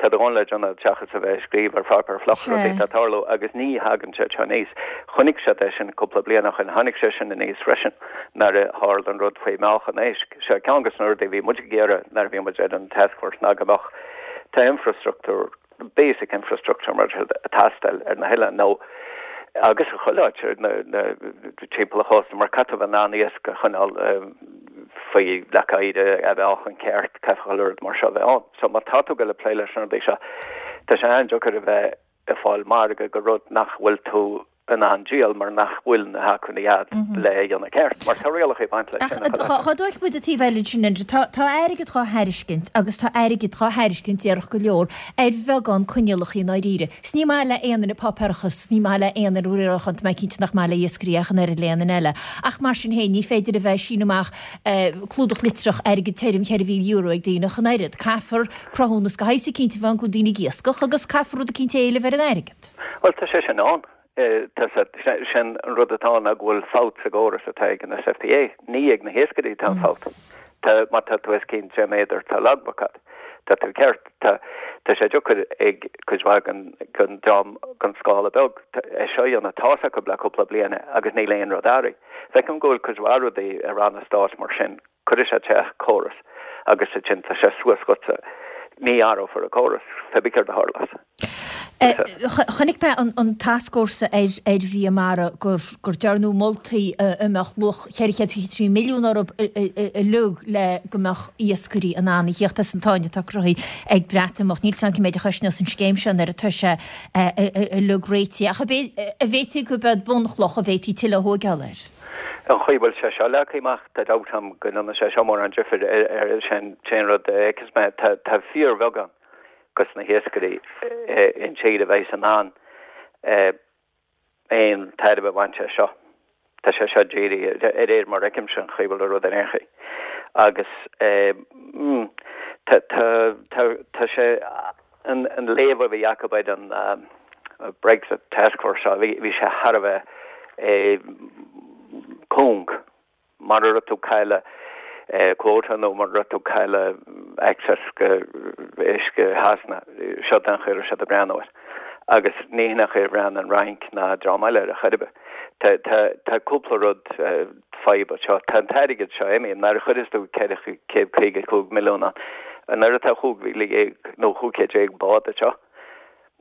tá do dhóthain le déanamh seachas a bheith ag scríobh ar pháipéar fliuch rudaí atá ag tarlú agus ní thagann sé seo aníos. Chonaic siad é sin cúpla bliain ó shin. Tháinig sé sin aníos freisin nuair a tharla an rud faoi mheáchan éisc. Seo ceann de na rudaí a bhí muid ag iarraidh nuair a bhí muid ar an taskforce ná go mbeadh tá infrastruchtúr basic infrastructure mar ag teastáil ar na hoileáin nó agus i chuile áit ar na na timpeall an chósta mar caithfidh tú bheith in ann iasc a choinneáil faoi leac oighir a mheáchan ceart caithfidh chuile rud mar seo a bheith ann. So má tá tú ag dul ag plé leis na rudaí seo tá sé an-deacair a bheith ag fáil margadh go rud nach bhfuil tú in ann díol mar nach bhfuil na hacmhainní agat le é a dhéanamh ceart, mar tá rialacha ag baint leis sin. Ach dá dtógfadh muid an taobh eile ansin, Enda, tá tá airgead dhá thairiscint agus tá airgead dhá thairiscint déarfá go leor ar bheagán coinníollacha i ndáiríre. 'S ní maith le aon duine páipéarachas, 's ní maith le aon duine riarachán, tá mé cinnte nach maith le iascairí ach an oiread le aon duine eile. Ach mar sin féin, ní féidir a bheith ag síneadh amach clúdach litreach airgead tirim €4,000 ag daoine ach an oiread. Caithfear cruthúnas de shaghas eicínt a bheith ann go bhfuil daoine ag iascach agus caithfear rud eicínt a éileamh ar an airgead. Bhuel, tá sé sin ann. Tá sé, sin an rud atá ann ná go bhfuil fabht sa gcóras atá ag an SFPA. Ní ag na hiascairí atá an fabht. Tá, má tá tú os cionn 10 méadar, tá logbook agat. Tá tú ceart. Tá tá sé deacair ag cuid mhaith den den dream den scála beag é seo a dhéanamh. Tá's acu le cúpla bliain agus níl aon rud athraithe. Feicim go bhfuil cuid mhaith rudaí i ranna stáit mar sin. Cuirfidh sé isteach córas agus ansin tá sé suas agatsa. Ní athrófar an córas, pé bith céard a tharlós. Chonaic mé an tascfhórsa ar bhia mara gur dearnadh moltaí a mbeadh luach 423 milliún orthu uilig le go mbeadh iascairí in ann a thíocht as an tsáinn atá cruthaithe ag Breatimeacht. Níl 's agam cé méid a chosnós an scéim seo nuair atá sé uilig réitithe ach an bhféadfaí gurb é bunchloch a bhféadfaí tuilleadh a thóigeáil air. An chaoi a bhfuil sé seo leagtha amach, tá dabht agam go ndéanfaidh sé seo mórán difir ar sin an rud a fheiceas mé. Tá fíorbheagán. dos na hiascairí intíre a bheidh in ann aon tairbhe a bhaint as seo. Tá sé seo dírithe, de réir mar a fheicimse an chaoi a bhfuil an rud ar aon chaoi. Agus tá, tá, tá, tá sé, an, an léamh a bhí acu ar an Brexit Task Force seo, bhí, bhí sé thar a bheith cúng. Mura raibh tú ag cailleadh quota nó mura raibh tú ag cailleadh access go uisce Shasana, seo an chaoi a raibh siad ag breathnú air. Agus ní hin an chaoi a bhreathnaigh an Fhrainc ná dream eile air ar chor ar bith. Tá, tá, tá cúpla rud fadhb anseo. Tá an t-airgead seo imithe. Nuair a chuireas tú 455 milliún ann, nuair atá 15,000 nó 1500 bád anseo,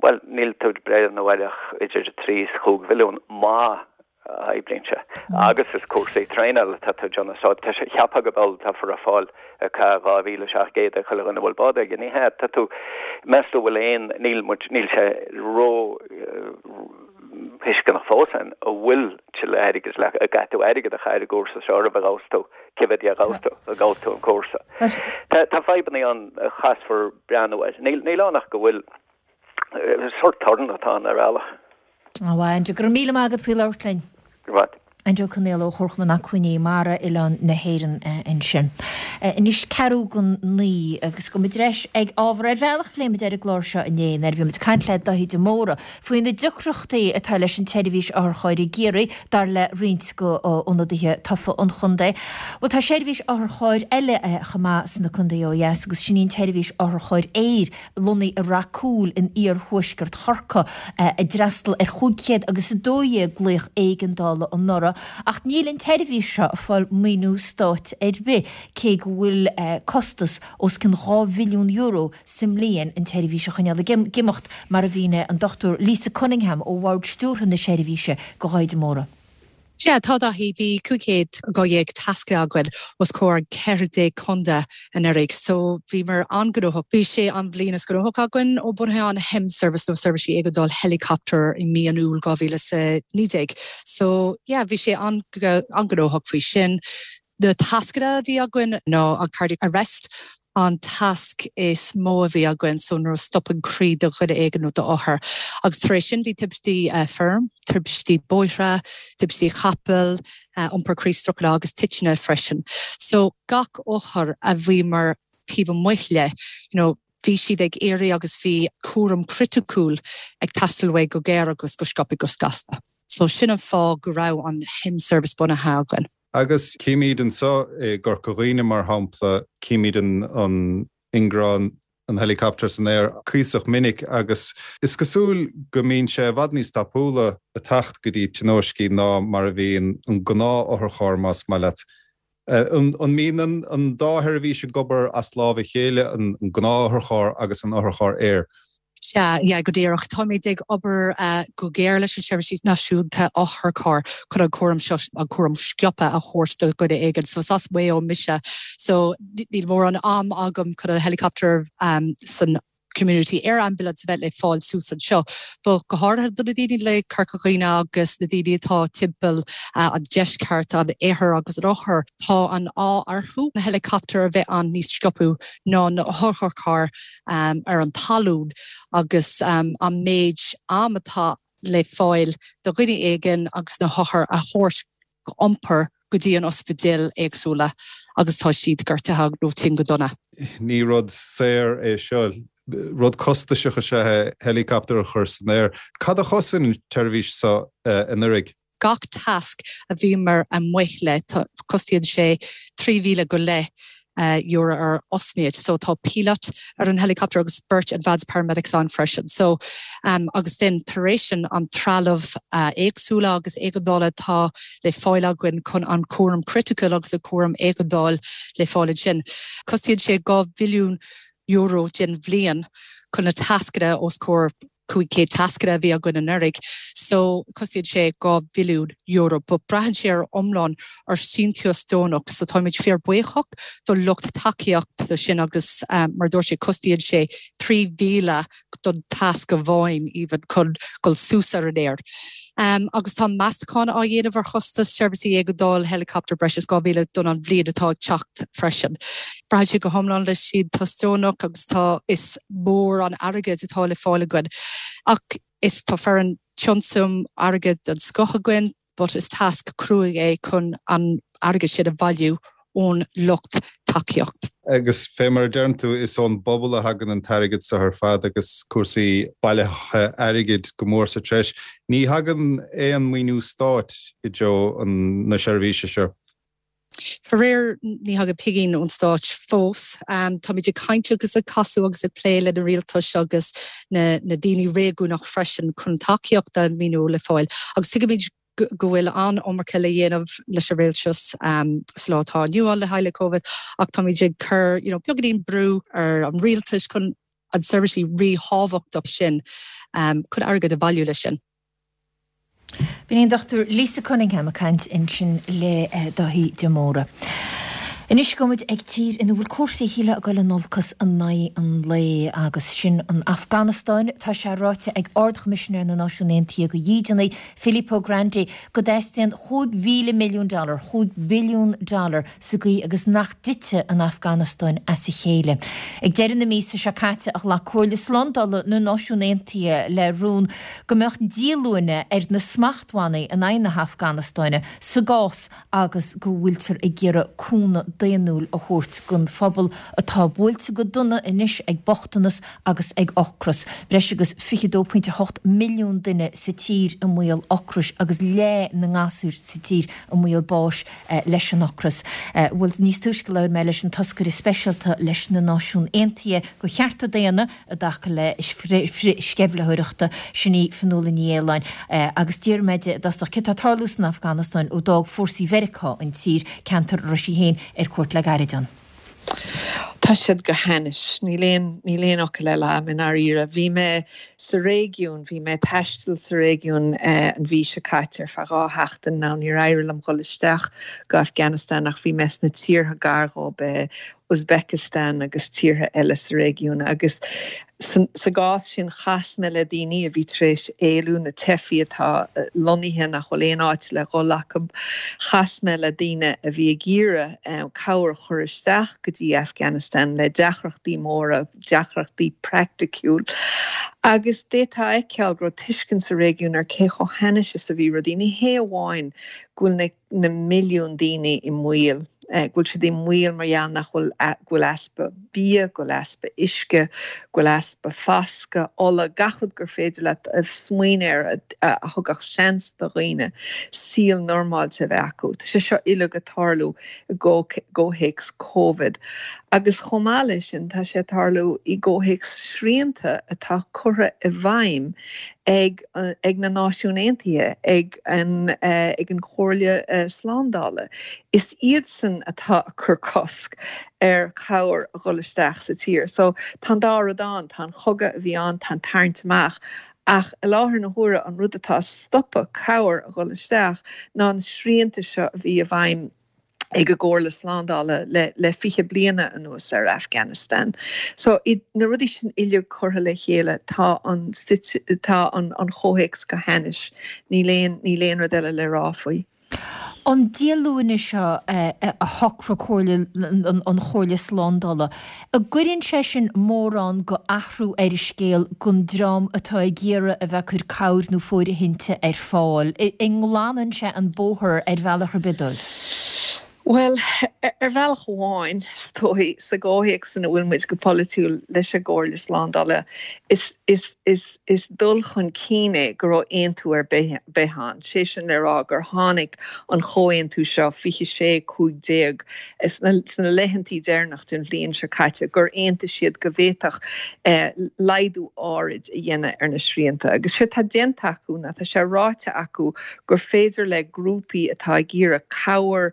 bhuel, níl tú ag breathnú ar ach idir 3 is 5 mhilliún má oibríonn sé. Agus is cúrsaí traenála atá tú ag déanamh so tá sé cheapfá go bhfuil tá far ag fáil 2,700 ag chuile dhuine a bhfuil bád aige. Ní hea, tá tú, meas tú bhfuil aon, níl muid, níl sé ró thuisceanach fós an bhfuil tuilleadh airgid le, an gcaithfidh tú airgead a chur i gcúrsa seo roimh a ghabhfas tú, cé mhéad a ghabhfas tú, a ghabhfas tú an cúrsa. Tá, tá fadhbanna ann a chaithfear breathnú air. Níl, níl ann ach go bhfuil sórt torann atá ann ar bhealach. Á, Aindriú, go raibh míle maith agat faoi labhairt linn. Go raibh maith. Aindriú Ó Conaola ó Chomharchumann Acmhainní Mara Oileán na hÉireann ansin. Anois ceathrú don naoi agus gabhfaidh muid ar ais ag ábhar ar bhealach a phléigh muid ar an gclár seo inné nuair a bhí muid ag caint le Daithí de Mórdha faoi na deacrachtaí atá leis an tseirbhís otharchairr i gCiarraí dar le roinnt de ionadaithe tofa an chontae. Bhuel tá seirbhís otharchairr eile chomh maith sna contaetha ó dheas agus sin í an tseirbhís otharchairr aeir lonnaithe i Rath Cúil in iarthuaisceart Chorcaí, a d'fhreastal ar 512 glaoch éigeandála anuraidh, ach níl an tseirbhís seo ag fáil maoiniú stáit ar bith, cé go bhfuil costas os cionn €2 mhilliún sa mbliain an tseirbhís a choinneáil ag imeacht, mar a mhínigh an Dr Lisa Cunningham ó Bhord Stiúrtha na seirbhíse do Dhaithí de Mórdha. Sea, tá, Daithí. Bhí 512 tasc againn os comhair 14 contae anuraidh, so bhíomar an-ghnóthach. Bhí sé an bhliain is gnóthach againn ó bunaithe an HEM Service nó Seirbhísí Éigeandáil Helicopter i mí an Iúil 2019. So, yeah, bhí sé an-ghnóthach faoi sin. Na tascanna a bhí againn ná an cardiac arrest, an tasc is mó a bhí againn, so nuair a stopann croí do dhuine éigin nó d'othar. Agus tar éis sin bhí tubaistí feirm, tubaistí bóithre, tubaistí capaill, iompar croí stróc agus titeanna freisin. So gach othar a bhíomar taobh amuigh le, you know, bhí siad ag iarraidh agus bhí cúram criticiúil ag teastáil uaidh go géar agus go sciobtha go gasta. So sin an fáth go raibh an HEM service bunaithe againn. Agus címid anseo i gCorca Dhuibhne, mar shampla, címid an ingearán, an helicopter san aer cuíosach minic agus is cosúil go mbíonn sé i bhfad níos tapúla ag teacht go dtí tionóiscí ná mar a bhíonn an gnáth-otharcharr, más maith leat. An mbíonn an dá sheirbhís ag obair as lámh a chéile, an gnáth-otharcharr agus an otharcharr aeir? Sea, yeah, go díreach. Táimid ag obair go géar leis an Seirbhís Náisiúnta Otharcharr chun an cúram seo, an cúram sciobtha a thabhairt do dhuine éigin. So is as Maigh Eo mise, so níl mórán am agam chun an helicopter san Community Air Ambulance a bheith le fáil suas anseo. But go háirithe do na daoine le Corca Dhuibhne agus na daoine atá timpeall an deisceart, an iarthar agus an oirthear, tá an ádh orthu na helicopter a bheith ann níos sciobtha ná na hotharchairr. ar an talún agus an méid am atá le fáil do dhuine éigin agus na hothair a thabhairt iompar go dtí an ospidéal éagsúla agus tá siad gortaithe nó tinn go dona. Ní rud saor é seo. Rud costasach is ea é helicopter a chur san aer. Cad a chosain an tseirbhís seo anuraidh? Gach tasc a bhíomar amuigh le, cosnaíonn sé 3,000 go leith. euro ar osméid. So tá pilot ar an helicopter agus beirt advanced paramedics ann freisin. So agus then tar éis sin an trealamh éagsúla agus éigeandála atá le fáil againn chun an cúram criticiúil agus an cúram éigeandáil le fáil ansin. Cosnaíonn sé €2 mhilliún den bhliain chun na tascanna os comhair 500 tascanna a bhí againn anuraidh so cosnaíonn sé €2 mhilliún but braitheann sé ar iomlán ar síntiús deonach so táimid fíor buíochach do lucht tacaíocht do sin agus mar dúirt sé cosnaíonn sé 3,000 don tasc amháin even chun dul suas ar an aer. Agus tá meastachán á dhéanamh ar chostas seirbhísí éigeandáil helicopter breis is 2,000 don an bhliain atá ag teacht freisin. Braitheann sé go hiomlán le síntiús deonach agus tá is mór an airgead atá le fáil againn. Ach is tá foireann tionsam airgead den scoth againn but is tasc cruaidh é chun an airgead sin a bhailiú ón lucht tacaíocht. Agus fé mar a deireann tú, is ón bpobal a thagann an t-airgead seo ar fad agus cúrsaí bailithe airgid go mór sa treis. Ní thagann aon maoiniú stáit i dtreo na seirbhíse seo. Faraor, ní thagann pingin ón stáit fós. Táimid ag caint agus ag casadh agus ag plé le na rialtais agus na daoine réigiúnach freisin chun tacaíocht a maoiniú le fáil. Agus tuigimid go bhfuil an-iomarca le dhéanamh leis an rialtas sa lá atá inniu ann le haghaidh le Covid ach táimid ag cur you know beagáinín brú ar an rialtas chun an seirbhísí ríthábhachtach sin chun airgead a bhailiú leis sin. B'in í an Dr Lisa Cunningham ag caint ansin le Dáithí de Mórdha. Anois gabhfaidh muid ag tír ina bhfuil cúrsaí shílfeá ag dul in olcas in aghaidh an lae agus sin an Afganastáin. Tá sé ráite ag Ard-Choimisinéir na Náisiún Aontaithe do Dhídeanaigh, Filippo Grandi, go dteastaíonn 5,000 milliún dollar, 5 billiún dollar, sa gcaoi agus nach dtitfidh an Afganastáin as a chéile. Ag deireadh na míosa seo caite a ghlac Comhairle Slándála na Náisiún Aontaithe le rún go mbeadh díolúine ar na smachtbhannaí in aghaidh na hAfganastáine sa gcás agus go bhfuiltear ag iarraidh cúnamh daonnúil a thabhairt don phobal atá buailte go dona anois ag bochtanas agus ag ocras. Breis agus 22.8 milliún duine sa tír i mbaol ocrais agus leath na ngasúr sa tír i mbaol báis leis an ocras. Bhuel, níos túisce labhair mé leis an toscaire speisialta leis na Náisiún Aontaithe do chearta daonna i dtaca le frith-sceimhlitheoireachta, sin í Fionnuala Ní Aoláin, agus d'iarr mé di i dtosach céard atá ag tarlú san Afganastáin ó d'fhág fórsaí Mheiriceá an tír, ceantar a raibh sí féin ar cuairt le gairid ann. Tá siad go hainnis. Níl aon, níl aon fhocal eile agam i ndáiríre. Bhí mé sa réigiún, bhí mé ag taisteal sa réigiún an mhí seo caite ar feadh 2 sheachtain. Now níor éirigh liom dhul isteach go Afghanistan ach bhí mé sna tíortha gar dhób, Uzbekistan agus tíortha eile sa réigiún agus Sa gcás sin, chas mé le daoine a bhí tar éis éalú, na teifigh atá lonnaithe nach bhfuil aon áit le dhul acu. Chas mé le daoine a bhí ag iarraidh cabhair a chur isteach go dtí Afghanistan le deacrachtaí móra, deacrachtaí praiticiúil. Agus d'fhéadfá a fheiceáil go raibh tuiscint sa réigiún ar cé chomh hainnis is a bhí rudaí. Ní hé amháin go bhfuil na. na milliúin daoine i mbaol, go bhfuil siad i mbaol mar gheall nach bhfuil, go bhfuil easpa bia, go bhfuil easpa uisce, go bhfuil easpa foscadh, ola, gach rud gur féidir leat smaoineamh air a thugadh seans do dhaoine saol normáilte a bheith acu. Tá sé seo uilig ag tarlú i gcomhthéacs Covid. Agus chomh maith leis sin, tá sé ag tarlú i gcomhthéacs srianta atá curtha i bhfeidhm ag ag na Náisiúin Aontaithe, ag an ag an Chomhairle Slándála. Is iadsan atá ag cur cosc ar chabhair a dhul isteach sa tír. So tá an dá rud ann, tá an chogadh a bhí ann, tá an tarraingt amach, ach i láthair na huaire an rud atá ag stopadh cabhair a dhul isteach ná na srianta seo a bhí i bhfeidhm ag an gComhairle Slándála le 20 bliana anuas ar Afghanistan. So, na rudaí sin uilig curtha le chéile, tá an tá an chomhthéacs go hainnis. Níl aon níl aon rud eile le rá faoi. An díolúine seo a shocraigh Comhairle an Chomhairle Slándála, an gcuireann sé sin mórán go athrú ar an scéal don dream atá ag iarraidh a bheith ag cur cabhair nó fóirithinte ar fáil? An nglanann sé an bóthar ar bhealach ar bith dóibh? Bhuel, ar bhealach amháin, is dóigh, sa gcomhthéacs ina bhfuil muid go polaitiúil leis an gComhairle Slándála, is, is, is, is dul chun cinn é go raibh aontú ar bith ann, sé sin le rá gur tháinig an chomhaontú seo, 26, 15, sna, sna laethantaí deireanach den bhliain seo caite, gur aontaigh siad go bhféadfadh laghdú áirid a dhéanamh ar na srianta. Agus séard tá déanta acu ná tá sé ráite acu gur féidir le grúpaí atá ag iarraidh cabhair,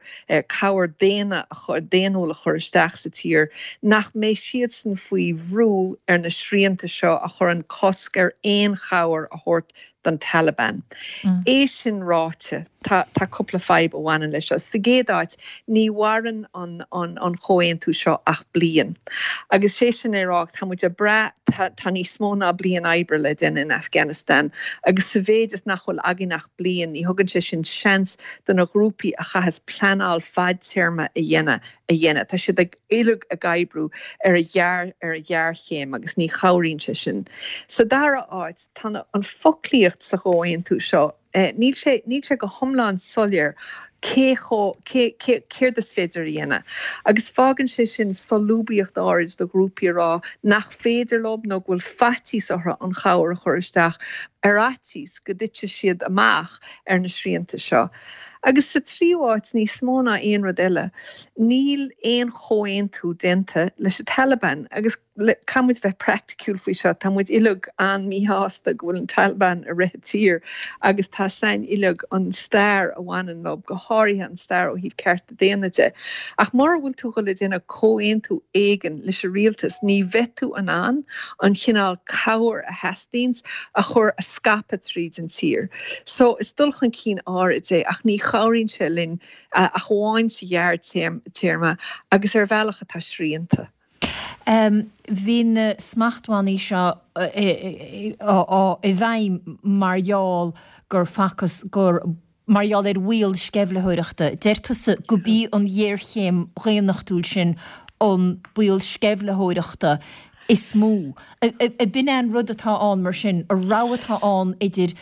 cabhair daonna a chur, daonnúil a chur isteach sa tír, nach mbeidh siadsan faoi bhrú ar na srianta seo a chuireann cosc ar aon chabhair a thabhairt don Taliban. É sin ráite, tá, tá cúpla fadhb a bhaineann leis seo. Sa gcéad áit, ní mhaireann an, an, an chomhaontú seo ach bliain. Agus sé sin le rá, tá muid ag brath, tá, tá níos mó ná bliain oibre le déanamh in Afghanistan agus sa mhéid is nach bhfuil againn ach bliain, ní thugann sé sin seans do na grúpaí a chaitheas pleanáil fadtéarma a dhéanamh a dhéanamh. Tá siad ag uilig ag oibriú ar a ghearr ar a ghéarchéim agus ní chabhraíonn sé sin. Sa dara háit, tá na an foclaíocht sa chomhaontú seo, níl sé níl sé go hiomlán soiléir cé chomh cé cé céard is féidir a dhéanamh. Agus fágann sé sin solúbthacht áirid do ghrúpaí a rá nach féidir leo nó go bhfuil faitíos orthu an chabhair a chur isteach ar fhaitíos go dtitfidh siad amach ar na srianta seo. Agus sa tríú háit, níos mó ná aon rud eile, níl aon chomhaontú déanta leis an Taliban. Agus caithfidh muid bheith praiticiúil faoi seo, tá muid uilig an-mhíshásta go bhfuil an Taliban ag rith an tír agus tá a fhios againn uilig an stair a bhaineann leo, go háirithe an stair ó thaobh cearta daonna de. Ach mura bhfuil tú ag dul a déanamh comhaontú éigin leis an rialtas, ní bheidh tú in ann an chineál cabhair a theastaíonns a chur, a scaipeadh tríd an tír. So, is dul chun cinn áirid é ach ní chabhraíonn sé linn ach amháin sa ghearrtéarma agus ar bhealach atá srianta. Bhí na smachtbhannaí seo i bhfeidhm mar gheall gur facthas gur mar gheall ar bhaol sceimhlitheoireachta. Deir tusa go b'í an ghéarchéim dhaonnachtúil sin an baol sceimhlitheoireachta is mó. Ab in é an rud atá ann mar sin, an rogha atá ann idir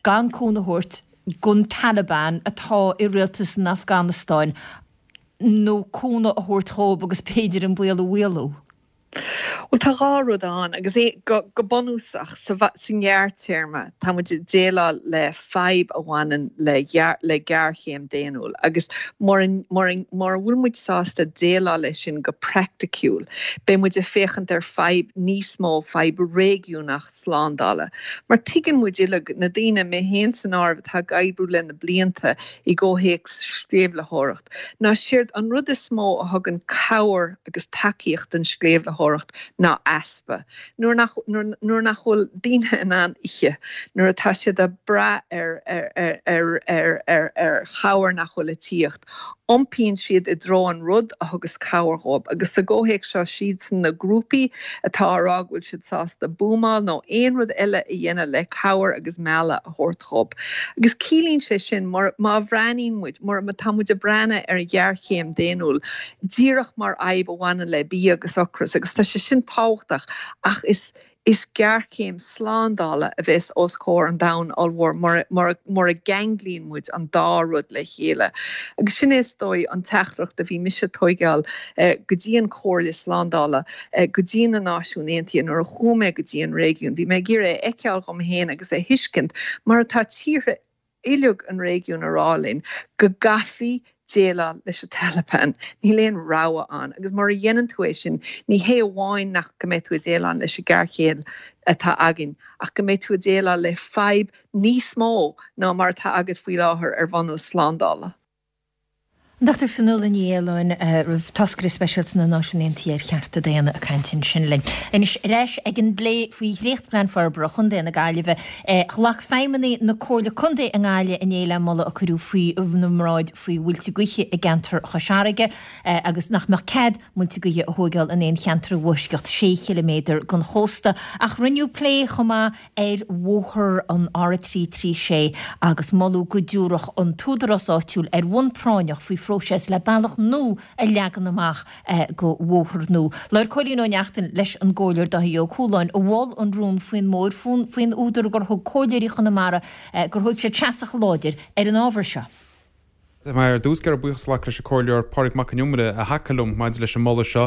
gan cúnamh a thabhairt don Taliban atá i rialtas an Afganastáin nó cúnamh a thabhairt dhóibh agus b'fhéidir an baol a mhaolú? Bhuel, tá dhá rud ann, agus é, go, go bunúsach, sa, sa ngearrtéarma, tá muid ag déileáil le fadhb a bhaineann le, le géarchéim daonnúil, agus mura, mura, mura bhfuil muid sásta déileáil leis sin go praiticiúil, beidh muid ag féachaint ar fadhb níos mó, fadhb réigiúnach slándála. Mar tuigeann muid uilig, na daoine, mé féin san áireamh, atá ag oibriú le na blianta i gcomhthéacs sceimhlitheoireacht, ná séard an rud is mó a thugann cabhair agus tacaíocht don sceimhlitheoireacht ná easpa. Nuair nach, nuair nach bhfuil daoine in ann ithe, nuair atá siad ag brath ar, ar, ar, ar, ar, ar chabhair nach bhfuil ag tíocht, iompaíonn siad i dtreo an rud a thugas cabhair dhóibh. Agus sa gcomhthéacs seo, siadsan na grúpaí atá á rá go bhfuil siad sásta buamáil nó aon rud eile a dhéanamh le cabhair agus mealladh a thabhairt dhóibh. Agus ciallaíonn sé sin, má bhreathnaíonn muid, má tá muid ag breathnú ar an ghéarchéim daonnúil, díreach mar fhadhb a bhaineann le bia agus ocras, agus tá sé sin tábhachtach, ach is is géarchéim slándála a bheas os comhair an domhain ollmhóir mura mura mura gceanglaíonn muid an dá rud le chéile. Agus sin é is dóigh an teachtaireacht a bhí mise ag tóigeáil go dtí an Chomhairle Slándála, go dtí na Náisiúin Aontaithe nuair a chuaigh mé go dtí an réigiún. Bhí mé ag iarraidh a fheiceáil dhom féin agus a thuiscint mar atá tíortha uilig an réigiúin a rá linn go gcaithfí déileáil leis an Taliban. Níl aon rogha ann. Agus mura dhéanann tú é sin, ní hé amháin nach go mbeidh tú ag déileáil leis an géarchéim atá againn, ach go mbeidh tú ag déileáil le fadhb níos mó ná mar atá agat faoi láthair ar bhunús slándála. An Dr Fionnuala Ní Aoláin, Táscaire Speisialta na Náisiún Aontaithe ar Chearta Daonna ag caint ansin linn. Anois, ar ais ag an bplé faoi dhréachtphlean forbartha Chontae na Gaillimhe. Ghlac feidhmeannaigh na Comhairle Contae i nGaillimh inné le moladh a cuireadh faoina mbráid faoi mhuilte gaoithe i gceantar Chois Fharraige agus nach mbeadh cead muilte gaoithe a thóigeáil in aon cheantar i bhfoisceacht sé chiliméadar den chósta. Ach rinneadh plé chomh maith ar bhóthar an R336 agus moladh go dtabharfadh an t-údarás áitiúil ar bhonn práinneach faoi phróiseas le bealach nua a leagan amach go bhóthar nua. Labhair Cóilín Ó Neachtain leis an gComhairleoir Dáithí Ó Cualáin a mhol an rún faoin mbóthar faoin údar gur thug Comhairleoirí Chonamara gur thóg siad seasamh láidir ar an ábhar seo. Tá mé ar dtús ag iarraidh buíochas a ghlacadh leis an Comhairleoir Pádraig Mac Con Iomaire a thacaigh liom maidir leis an moladh seo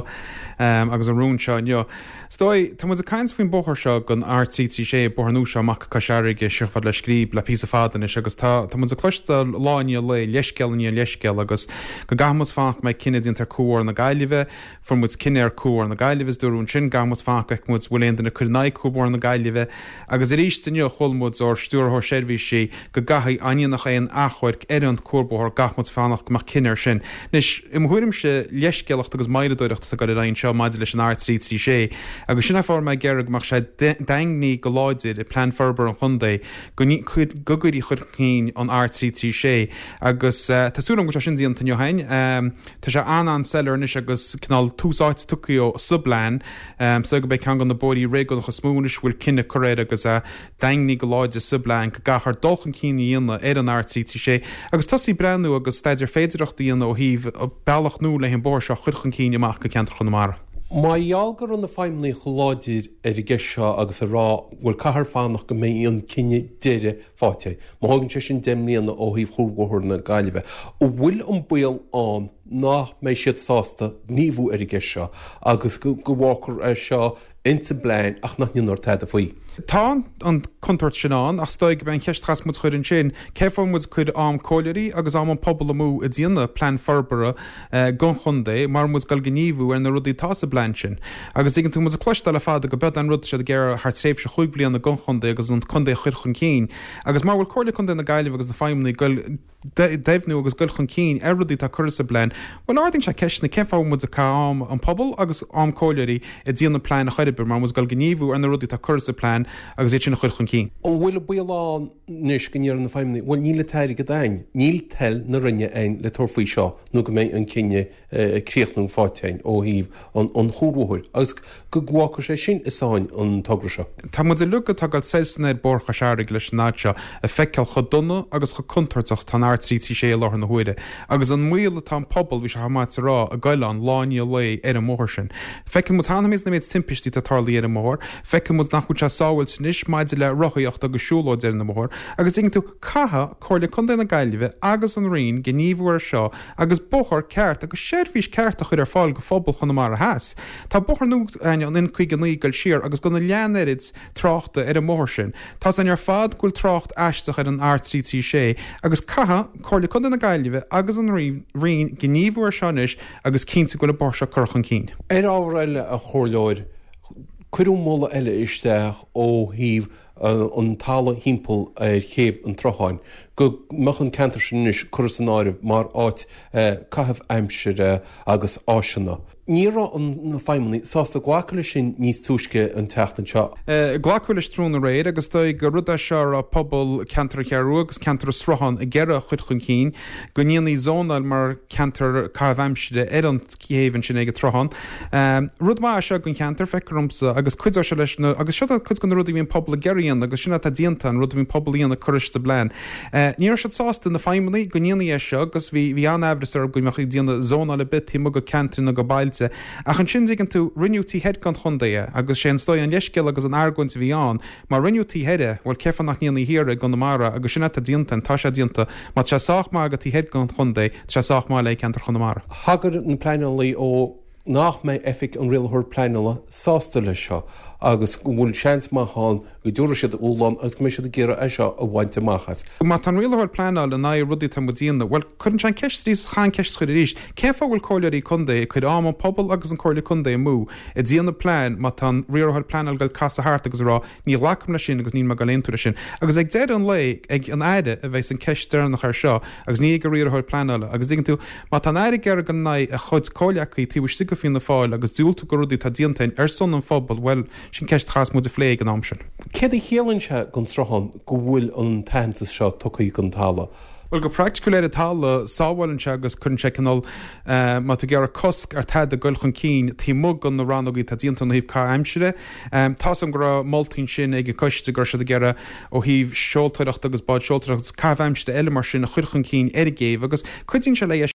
agus an rún seo inniu. Is dóigh, tá muid ag caint faoin bóthar seo den R336, bóthar nua seo amach go Cois Fharraige, siar chomh fada le Scríb le píosa fada anois agus tá tá muid ag cloisteáil lá i ndiaidh lae, leithscéal i ndiaidh leithscéil agus go gcaithfidh muid fanacht go mbeidh cinneadh déanta ar Cuarbhóthar na Gaillimhe, Fuair muid cinneadh ar Cuarbhóthar na Gaillimhe is dúradh ansin go gcaithfidh muid fanacht go bhfeicfidh muid bhfuil aon duine ag cur in aghaidh Cuarbhóthar na Gaillimhe agus arís inniu chuala muid ór Stiúrthóir Seirbhísí go gcaithfidh dá ndéanfadh aon achomhairc ar an Cuarbhóthar go gcaithfidh muid fanacht go mbeadh cinneadh ar sin. Anois, i mo thuairimse, leithscéalacht agus moilleadóireacht atá ag dul ar aghaidh anseo maidir leis an R336 agus sin é fáth a raibh mé ag iarraidh go mbeadh sé daingnithe go láidir i Plean Forbartha an Chontae go gcuirfí chun cinn an R336 agus tá súil agam go bhfuil sé sin déanta inniu féin. Tá sé an-an-soiléir anois agus cineál tús áite tugtha dó sa bplean. Is dóigh gurb é ceann de na bóithrí réigiúnacha is mó anois a bhfuil cinneadh curtha air agus é daingnithe go láidir sa bplean go gcaithfear dul chun cinn a dhéanamh ar an R336 agus tosaí ag breathnú agus staidéar féidearthachta a dhéanamh ó thaobh bealach nua le an bóthar seo a chur chun cinn amach go ceantar Chonamara. Mar gheall go raibh na feidhmeannaigh chomh láidir ar an gceist seo agus ag rá bhuel caithfear fanacht go mbeidh an cinneadh deiridh faighte. Má thógann sé sin 10 mbliana ó thaobh Chuarbhóthar na Gaillimhe, an bhfuil an baol ann nach mbeidh siad sásta gníomhú ar an gceist seo agus go bhfágfar é seo ins an bplean ach nach ndéanfar tada faoi? Tá an chontúirt sin ann ach is dóigh gurb é an cheist a chaithfeas muid a chur ansin, cén fáth a bhfuil muid ag cur am comhairleoirí agus am an pobal amú ag déanamh plean forbartha don chontae mura bhfuil muid ag dul gníomhú ar na rudaí atá sa bplean sin. Agus tuigeann tú, muid ag cloisteáil le fada go b'iod an rud siad ag iarraidh thar tréimhse chúig bliana don chontae agus an contae a chur chun cinn. Agus mura bhfuil Comhairle Contae na Gaillimhe agus na feidhmeannaigh ag goil deimhniú agus goil chun cinn ar rudaí atá curtha sa bplean, bhuel ardaíonn sé ceisteanna cén fáth a bhfuil muid ag caitheamh am an pobal agus am comhairleoirí ag déanamh plean ar chor ar bith mura bhfuil muid ag goil gníomhú ar na rudaí atá curtha sa bplean agus iad sin a chur chun cinn. An bhfuil an baol ann anois go ndéarfaidh na feidhmeannaigh, bhuel níl an t-airgead a'ainn, níl toil na Roinne a'ainn le tabhairt faoi seo nó go mbeidh an cinneadh críochnúil faighte a'ainn ó thaobh an chuarbhóthair agus go bhfágfaidh sé sin i sáinn an togra seo. Tá muid uilig atá ag dul soir is anoir Bóthar Chois Fharraige leis an fhad seo ag feiceáil chomh dona agus chomh contúirteach atá an R336 i láthair na huaire agus an mbaol atá an pobal, bhí sé chomh maith a rá, ag goil ann lá i ndiaidh lae ar an mbóthar sin. Feiceann muid cheana féin an méid timpistí atá tarlaithe ar an mbóthar, feiceann muid nach bhfuil sé sábháilte anois maidir le rothaíocht agus siúlóid ar an mbóthar agus tuigeann tú, caithfidh Comhairle Contae na Gaillimhe agus an Roinn gníomhú air seo agus bóthar ceart agus seirbhís ceart a chur ar fáil go phobal Chonamara Theas. Tá bóthar nua againn, an N59 ag goil siar agus gan a leath an oiread tráchta ar an mbóthar sin. Tá's againn ar fad go bhfuil trácht aisteach ar an R336 agus caithfidh Comhairle Contae na Gaillimhe agus an Roinn gníomhú air seo anois agus cinntiú go bhfuil an bóthar seo curtha chun cinn. Ar ábhar eile, a Chomhairleoir, cuireadh moladh eile isteach ó thaobh an talamh thimpeall ar chéibh an tSrutháin, go mbeadh an ceantar sin anois curtha san áireamh mar áit caitheamh aimsire agus áiseanna. Ní raibh na feidhmeannaigh sásta glacadh leis sin níos túisce an tseachtain seo. Glacadh leis tráthnóna aréir agus is dóigh gur rud é seo a raibh pobal ceantar an Cheathrú Rua agus ceantar an Srutháin ag iarraidh a chur chun cinn, go ndéanfaí zónáil mar cheantar caitheamh aimsire ar an chéibh ansin ag an tSruthán. Rud maith é seo don cheantar, feictear domsa, agus cuideoidh sé leis na, agus seo cuid de na rudaí a bhí an pobal ag iarraidh a dhéanamh agus sin atá déanta, an rud a bhí an pobal a dhéanamh curtha sa bplean. Ní raibh siad sásta, na feidhmeannaigh, go ndéanfaí é seo agus bhí, bhí an-aimhreas orthu go mbeadh ag déanamh zónáil ar bith taobh amuigh de ceantair nó de bailte. Ach ansin, dtuigeann tú, rinneadh taobh thoir den chontae é agus sé an is dóigh an leithscéal agus an argóint a bhí ann, má rinneadh taobh thoir é, bhuel cén fáth nach ndéanfaí thiar i gConamara agus sin atá déanta, tá sé déanta, má tá sé sách maith do taobh thoir den chontae, tá sé sách maith le ceantar Chonamara. Thagair na pleanálaí ó nach mbeidh Oifig an Rialaitheoir Pleanála sásta leis seo agus go bhfuil seans maith ann go dtabharfaidh siad dúshlán agus go mbeidh siad ag iarraidh é seo a bhaint amach as. Má tá an Rialaitheoir Pleanála in aghaidh rudaí atá muid a dhéanamh, bhuel, cuireann sé an ceist arís, chaithfidh an ceist a chur arís, cén fáth a bhfuil Comhairleoirí Contae ag cur am an pobal agus an Comhairle Contae amú ag déanamh plean má tá an Riarthóir Pleanála ag dul casadh thart agus ag rá Ní ghlacaim leis sin agus níl mé ag dul aontú leis sin. Agus ag deireadh an lae, ag an Aire a bheas an ceist deireanach air seo agus ní ag an riarthóir pleanála. Agus dtuigeann tú, má tá an Aire ag iarraidh dul in aghaidh a chuid comhleacaí taobh istigh de Fianna Fáil agus diúltú do rudaí atá déanta ar son an phobail, bhuel, sin ceist a chaithfeas muid a phlé ag an am sin. Céard a chiallaíonn sé don Sruthán go bhfuil an t-aitheantas seo tugtha don talamh? Bhuel, go praiticiúil ar an talamh, sábhálann sé agus cuireann sé cineál, má tá tú ag iarraidh cosc ar tada goil chun cinn taobh amuigh de na rannógaí atá déanta ó thaobh caitheamh aimsire, Tá's agam go raibh moltaí ansin ag an gcoiste go raibh siad ag iarraidh ó thaobh seoltóireachta agus bád seoltóireachta agus caitheamh aimsire eile mar sin a chur chun cinn ar an gcéibh agus cuidíonn sé le.